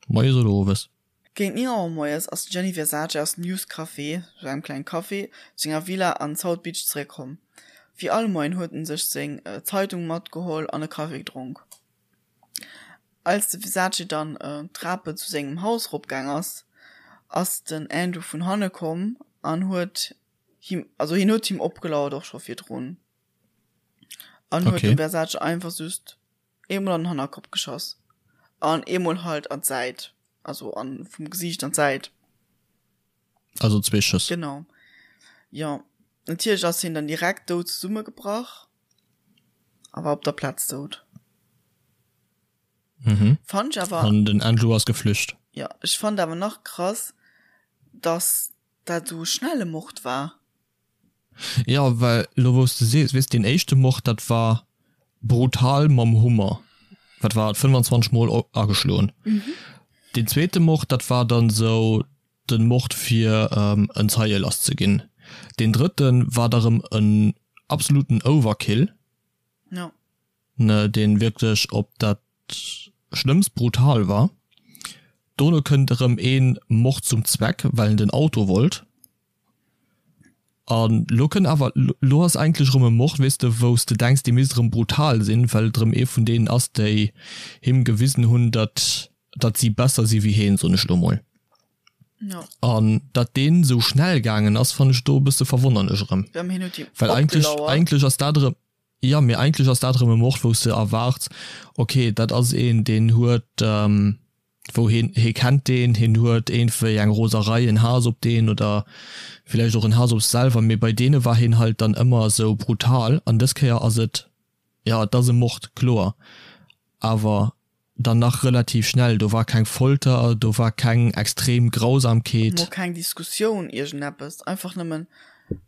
Moies oder owes? Géint 9 Auer moies ass den Gianni Versace aus dem Youth Café, sou engem klengen Café, zu senger Villa an South Beach zeréckkomm. Wéi all Moien huet en sech seng Zeitung matgeholl an e Kaffi gedronk. Als de Versace dann d'Trapen zu sengem Haus eropgaang ass, ass den Andrew vun hanne komm an huet him, also hien huet him opgelauert och scho virdrun, an huet dem Versace einfach just eemol an den Hannerkopp geschoss an eemol halt an d'Säit, also an vum Gesiicht an d'Säit. Also zwee Schëss. Genau. Jo, natierlech ass hien dann direkt dout zesummegebrach a war op der Plaz dout. Mhm. Fand ech awer. An den Andrew ass geflücht. Jo, ech fand awer nach krass, dass dat esou e schnelle Mord war. Jo, well elo wou s de sees, weess, deen éischte Mord, dat war brutal mam Hummer, wat war et, 25 mol ageschloen. Deen zweete Mord, dat war dann esou den Mord fir en Zeie lass ze ginn. Deen drëtten war da rëm en absoluten Overkill, ne, deen wierklech op dat schlëmmst brutal war. Dono kënnt erëm een Mord zum Zweck, well en den Auto wollt. An lo kënnt awer, lo ass eigentlech erëm e Mord, weess de, wou s de denks, dee misst erëm brutal sinn, well et erëm ee vun deenen ass, déi him gewisen hunn, datt, datt si besser si wéi heen, soen ech lo mol. An datt deen esou schnell gaangen ass, fannen ech do e bësse verwonnerlech erëm. Well eigentlech, eigentlech ass dat erëm, jo, mee eigentlech ass dat erëm e Mord, wou s de erwaarts, okay, dat ass een, deen huet, wou heen, hee kennt deen, heen huet iergendwéi eng Roserei, en Haass op deen oder villäicht och en Haass op sech selwer, mee bei deene war heen halt dann ëmmer esou brutal an dës Kéier ass et, jo et ass e Mord, kloer, awer dann nach relativ schnell, do war keng Folter, do war keng extrem Grausamkeet. Mol keng Diskussioun, iergendeppes, einfach nëmmen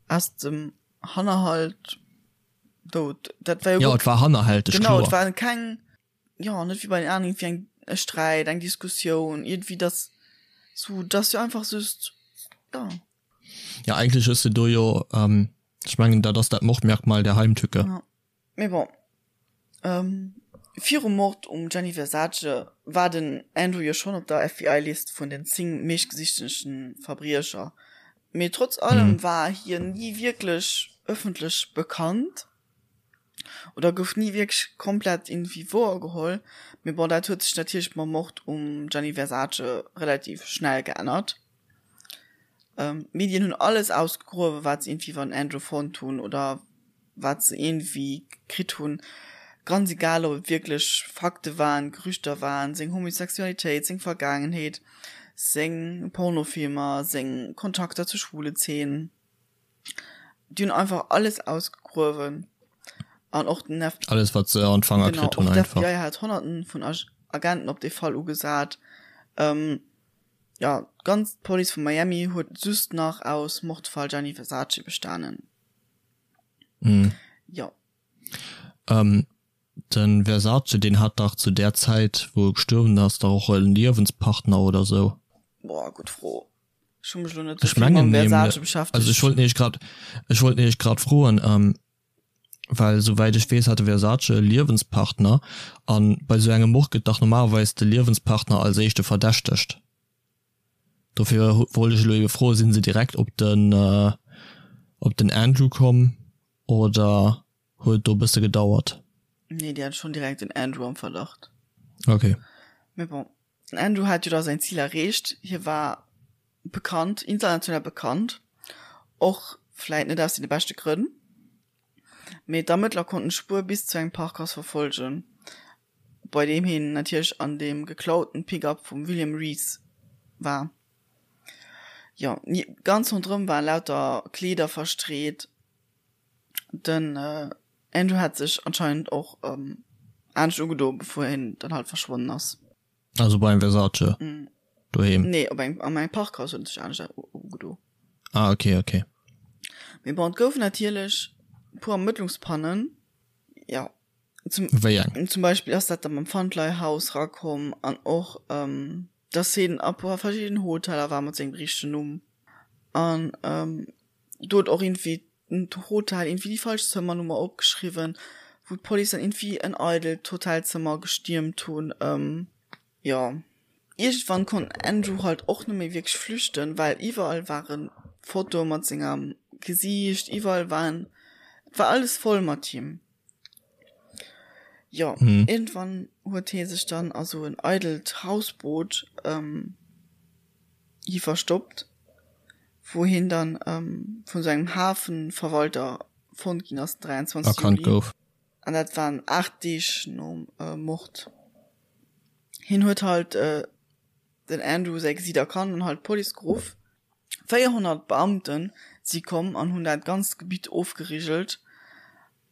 aus dem Hannerhalt dout, dat war jo. Jo, et war hannerhälteg, kloer. Genau, et war keng. jo net wéi bei den aneren iergendwéi eng e Sträit, eng Diskussioun, iergendwéi dass sou dass jo einfach just jo. Ja eigentlech hues de do jo, ech mengen dat ass dat Mordmerkmal der Heimtücke. Ja mee bon, virum Mord um Gianni Versace war den Andrew jo schonn op der FBI-List vun den 10 meeschtgesichtegen Verbriecher, mee trotz allem war hien ni wierklech ëffentlech bekannt. Oder gouf ni wierklech komplett iergendwéi wouer geholl. Mee bon, dat huet sech natierlech mam Mord um Gianni Versace relativ schnell geännert. D'Medien hunn alles ausgegruewen, wat se iergendwéi iwwer den Andrew fonnt hunn oder wat se iergendwéi kritt hunn. Ganz egal, ob et wierklech Fakte waren, Gerüchter waren, seng Homosexualitéit, seng Vergaangenheet, seng Pornofilmer, seng Kontakter zur schwule Zeen. Déi hunn einfach alles ausgegruewen an och den FBI. Alles wat se an d'Fanger kritt hunn einfach. Genau, och d'FBI hat honnerten vun Agenten op dee Fall ugesat. Jo, d'ganz Police vu Miami huet just nach aus Mordfall Gianni Versace bestanen. Jo. Den Versace deen hat dach zu där Zäit wou e gestuerwen ass dach och e Liewenspartner oder sou. Boah, gutt Fro. Ech hu mech elo net esou vill mam Versace beschäftegt. Also ech wollt nämlech grad, ech wollt nämlech grad froen, well souwäit ech weess hat de Versace e Liewenspartner an bei esou engem Mord gëtt dach normalerweis de Liewenspartner als éischte verdächtegt. Dofir wollt ech elo ebe froen, sinn se direkt op den op den Andrew komm oder huet do bësse gedauert? Nee, déi hat schonn direkt den Andrew am Verdacht. Okay. Mee bon, den Andrew hat jo da säin Zil erreecht, hie war bekannt, international bekannt, och vläit net aus deene beschte Grënn, mee d'Ermëttler konnten d'Spuer bis zu engem Parkhaus verfollegen, bei deem hien natierlech an deem geklauten Pick-up vum William Rees war. Jo, ganz ronderëm waren lauter Kleeder verstreet. Den Andrew hat sech anscheinend och anescht ugedo, bevor hien dann halt verschwonnen ass. Also beim Versace doheem? Nee, op engem, an engem Parkhaus huet en sech anescht ugedo. Ah, okay, okay. Mee bon, et goufen natierlech e puer Ermëttlungspannen, jo. Zum, Wéi eng? Zum Beispill ass dat da mam Pfandleihhaus rakomm an och, dass hien a puer verschiddenen Hoteller war mat sengem richtegen Numm. An do huet och iergendwéi den Hotel iergendwéi déi falsch Zëmmernummer opgeschriwwen, wou d'Police dann iergendwéi en eidelt Hotelzëmmer gestiermt hunn. Jo, iergendwann konnt den Andrew halt och net méi wierklech flüchten, well iwwerall ware Fotoe mat sengem Gesiicht, iwwerall waren, et war alles voll mat him. Jo, iergendwann huet hie sech dann a sou en eidelt Hausboot hi verstoppt, wou hien dann vun sou engem Hafenverwalter fonnt ginn ass den 23 Erkannt Juli. gouf. An dat waren 8 Deeg nom Mord. Hien huet halt den Andrew säi Gesiit erkannt an halt d'Police geruff. 400 Beamte si komm an hunn dat ganzt Gebitt ofgerigelt.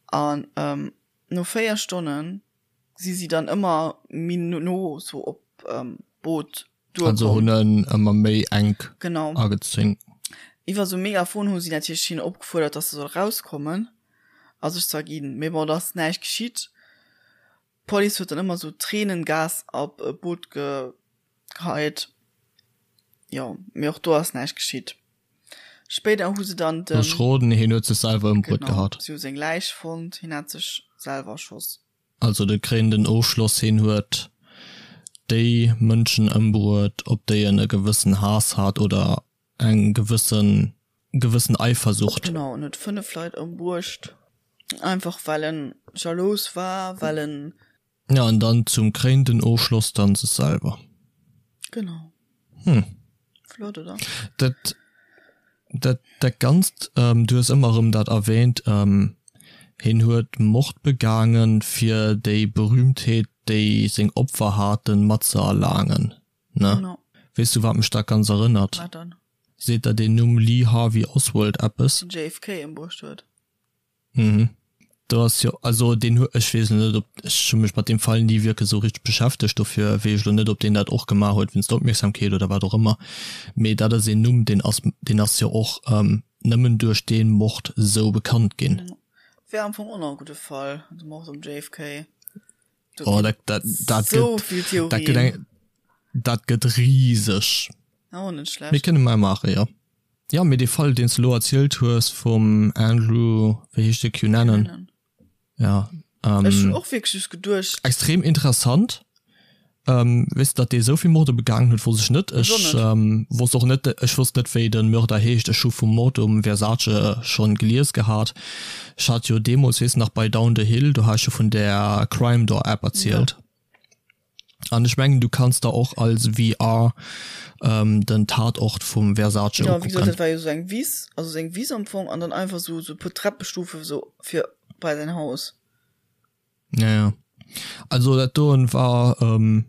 An no 4 Stonne si si dann ëmmer méi no sou op d'Boot duerkomm. Also hunn en ëmmer méi enk Genau. agezéngt. Iwwer sou Megafon hu si natierlech hien opgefuerdert, dass se soll rauskommen a sech z'erginn. Mee bon, et ass näischt geschitt. D'Police huet dann ëmmer sou Tränengas op d'Boot geheit. Jo, mee och do ass näischt geschitt. Spéider hu se dann den. Looss roden, hien huet sech selwer ëmbruet Genau, gehat. si hu seng Läich fonnt, hien hat sech selwer erschoss. Also de kréinenden Ofschloss, hien huet déi Mënschen ëmbruet, op déi en e gewëssen Haass hat oder eng gewëssen gewëssen Eifersucht. Genau, en huet 5 Leit ëmbruecht, einfach well en jalous war, well en. Ja, an dann zum kréinenden Ofschloss dann sech selwer. Genau. Hm. Flott, oder? Dat, dat, dat Ganzt, du hues ëmmer erëm dat erwähnt, hien huet Mord begaangen, fir déi Berühmtheet, déi seng Opfer haten, mat ze erlaangen, ne? Genau. Weess du, wat mech dat ganz erënnert? Wat dann? Seet der deen Numm Lee Harvey Oswald eppes? Den JFK ëmbruecht huet. Mhm. Do ass jo, also deen huet, ech weess elo net, ob, ech hu mech mat deem Fall ni wierklech esou richteg beschäftegt, dofir weess ech elo net, ob deen dat och gemaach huet wéinst der Opmierksamkeet oder wat och ëmmer, mee dat ass een Numm, deen ass, deen ass jo och nëmmen duerch dee Mord esou bekannt ginn. Wär am Fong och nach e gudde Fall, de Mord um JFK. Do Oh, dat, dat, dat sou gëtt, vill dat gëtt Theorien. eng, dat gëtt riseg. Oh, net Mir schlecht. kënne mei maachen, jo. Jo, mee dee Fall, deen s de elo erzielt hues vum Andrew, wéi heescht de, Cunanan? Cunanan. Ja, Ech hunn ähm, och wierklech just geduecht. extrem interessant. Ähm, weess de, datt dee esou vill Morde begaangen huet, wosst ech net. Ech och Ech net. ähm, wosst och net, ech wosst net, wéi de Mörder heescht. Ech hu vum Mord um Versace schonn gelies gehat. Ech hat jo deemools, weess de nach, bei Down the Hill, do hat ech jo vun där Crime Door App Ja. erzielt. An ech mengen, du kanns der och als VR ähm, den Tatort vum Versace Ja, wéi gesot, ukucken. dat war jo sou eng Wiss, also seng Wiss am Fong, an dann einfach sou sou e puer Treppestufe sou fir bei säin Haus. Ja, ja. Also dat doen war ähm,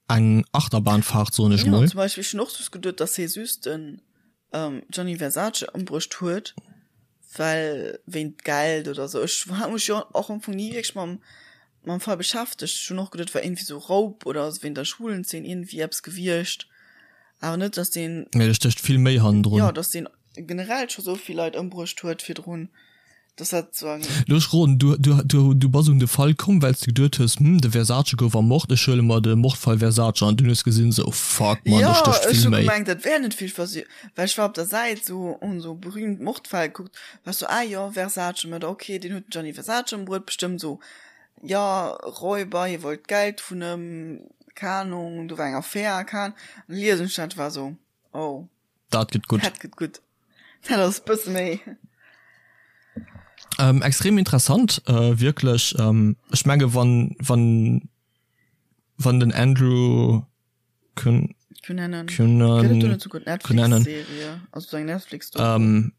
eng Achterbahnfahrt, soen ech Ja, mol. zum Beispill, ech hunn och just geduet, dass hie just den ähm, Gianni Versace ëmbruecht huet, well wéint Geld oder sou. Ech hat mech jo och am Fong ni wierklech mam mam Fall beschäftegt. Ech hunn och geduet, et war iergendwéi sou Raub oder wéint der Schwulenzeen iergendwéi eppes gewiescht. Awer net, dass deen. Mee do stécht vill méi hannendrun. Jo, dass deen generell scho sou vill Leit ëmbruecht huet virdrun. Dass dat sou eng. Lo ech roden, du, du, du, du bass un de Fall komm, well s de geduet hues, hm, de Versace gouf ermort, ech huele mer de Mordfall Versace an dunn hues gesinn, sou, fuck man, do Jo, stécht ech vill hu méi. gemengt, dat wär net vill versi, well ech war op der Säit sou, hunn sou berühmt Mordfäll gekuckt, war ech sou, ah jo, Versace Mörder, okay, deen huet den Gianni Versace ëmbruet, bestëmmt sou, jo, Räuber, hie wollt Geld vun ëm, keng Ahnung, do war eng Affär, keng Ahnung, an liesen ech dat, war sou, oh. Dat gëtt gutt. Dat gëtt gutt. Dat ass bësse méi. Ähm, extrem interessant, äh, wierklech. Ähm, ech menge wann, wann, wann den Andrew Cun Cunanan. Cunan Gëtt et do net souguer Cunanan. d'Netflix-Serie? Also sou eng Netflix-Doku? Ähm,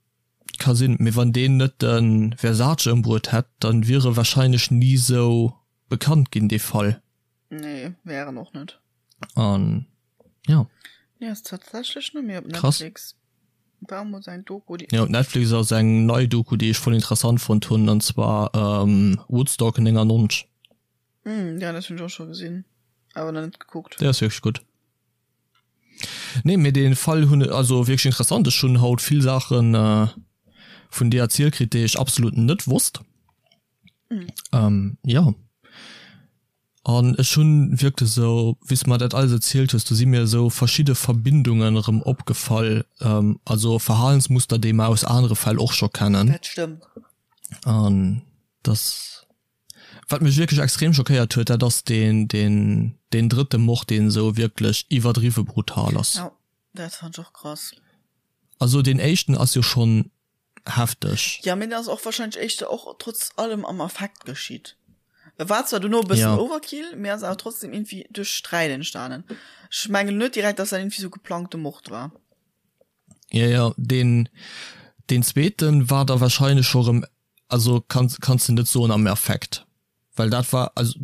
ka sinn, mee wann deen net de Versace ëmbruet hätt, dann wier e wahrscheinlech ni sou bekannt ginn, dee Fall. Nee, wär en och net. An ja. Nee, ass tatsächlech net méi op Krass. Netflix. War mol eng Doku, déi. Ja, op Netflix ass eng nei Doku, déi ech voll interessant fonnt hunn, an zwar ähm, Woodstock 99. Mm, ja, dat hunn ech och scho gesinn, awer nach net gekuckt. Déi ass wierklech gutt. Nee, mee dee Fall hunn, also wierklech interessant. Ech hunn haut vill Saachen äh, vun dir erzielt kritt, déi ech absolut net wosst. Mm. Ähm, ja. An ech hunn wierklech esou, wéi s de mer dat alles erzielt hues, do si mir esou verschidde Verbindungen erëm opgefall, also Verhalensmuster, déi mer aus anere Fäll och scho kennen. Dat stëmmt. An dass, wat mech wierklech extrem schockéiert huet, dat ass deen, deen, deen drëtte Mord, deen esou wierklech iwwerdriwwe brutal ass. Jo, dat fand ech och krass. Also deen éischten ass jo schonn hefteg. Ja, mee dat ass och wahrscheinlech éischter och trotz allem am Affekt geschitt. E war zwar dono e bëssen Ja. Overkill, mee ass awer trotzdem irgendwie duerch Sträit entstanen. Ech mengen net direkt, dass dat irgendwie sou geplangte Mord war. Ja, ja, deen, deen zweeten war da wahrscheinlech scho rëm, also kanns, kanns de net soen am Affekt. Well dat war, also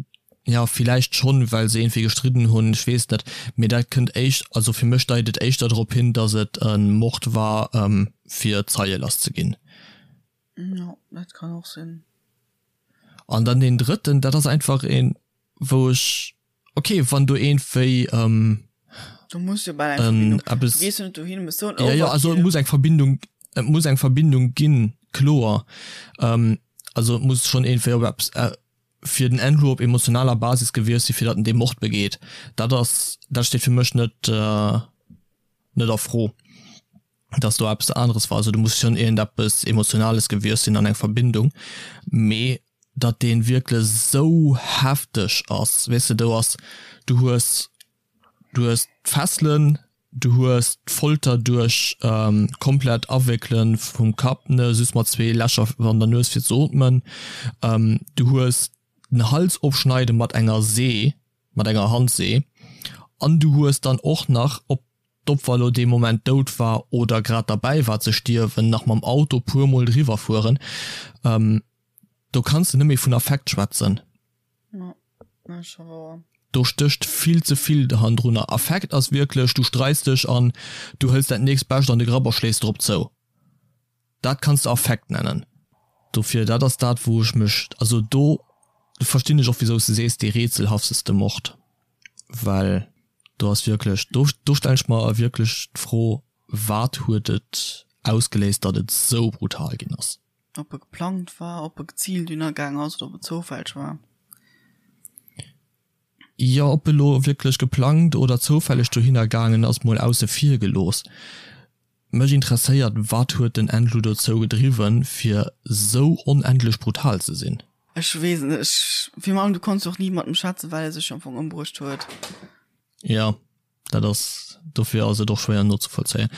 jo villäicht schonn, well se iergendwéi gestridden hunn, ech weess net, mee dat kënnt éischt, also fir mech deit et éischter drop hin, datt et e Mord war fir Zeie lass ze ginn. Jo, dat kann och sinn. An dann deen drëtten, dat ass einfach een, wou ech, ok, wann do iergendwéi Do muss jo bal eng Verbindung, du gees jo net dohin, hues sou en Ja, ja, also et Overkill. muss eng Verbindung, et muss eng Verbindung ginn, kloer. Also et muss schonn iergendwéi op eppes fir den Andrew op emotionaler Basis gewiescht sinn, fir datt en dee Mord begeet. Dat ass, dat steet fir mech net, net a Fro, datt do eppes aneres war. Also do muss schonn iergendeppes Emotionales gewiescht sinn an eng Verbindung. Mee datt dee wierklech esou hefteg ass, weess de, do ass, du hues Du hues d'Fesselen, du hues d'Folter duerch komplett Awéckele vum Kapp, ne, just mat zwee Lächer an der Nues fir ze ootmen, du hues den Hals ofschneide mat enger See, mat enger Handsee, an du hues dann och nach, ob d'Opfer elo dee Moment dout war oder grad derbäi war ze stierwen, nach mam Auto puer mol driwwer fueren. Do kanns de net méi vun Affekt schwätzen. Do stécht vill ze vill hannendrunner. Affekt ass wierklech, du streits dech an du hëls dat nächst Bescht an de Grapp a schléis drop zou. Dat kanns de Affekt nennen. Dofir, dat ass dat wou ech mech, also do verstinn ech och wisou s de sees dee rätselhafteste Mord, well do ass wierklech, do do stellen ech mer wierklech d'Fro, wat huet et ausgeléist, datt et sou brutal ginn ass? Ob e geplangt war, ob e geziilt ënnergaang ass oder ob et zoufälleg war. Jo, ob elo wierklech geplangt oder zoufälleg dohinner gaangen ass, mol ausse vir gelooss. Mech interesséiert, wat huet den Andrew dozou gedriwwen, fir sou onendlech brutal ze sinn? Ech weess et net. Ech, virun allem, du konns jo och ni mat em schwätzen, well e sech jo am Fong ëmbruecht huet. Jo. Dat ass, dofir ass et och schwéier nozevollzéien.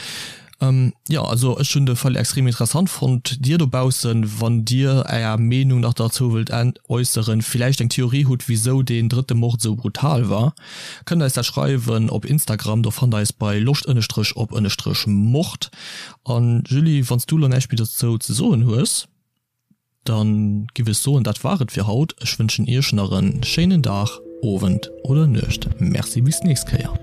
Jo, also ech hunn de Fall extrem interessant fonnt. Dir dobaussen, wann Dir Är Meenung nach derzou wëllt äusseren, villäicht eng Theorie hutt, wisou deen drëtte Mord esou brutal war, kënnt eis dat schreiwen op Instagram. Do fannt der eis bei loscht ënnestrech op ënnestrech mord. An Julie, wann s du elo näischt méi dozou ze soen hues? Dann giff ech soen, dat war et fir haut. Ech wënschen iech nach en schéinen Dag, Owend oder Nuecht. Merci, bis d'nächst Kéier.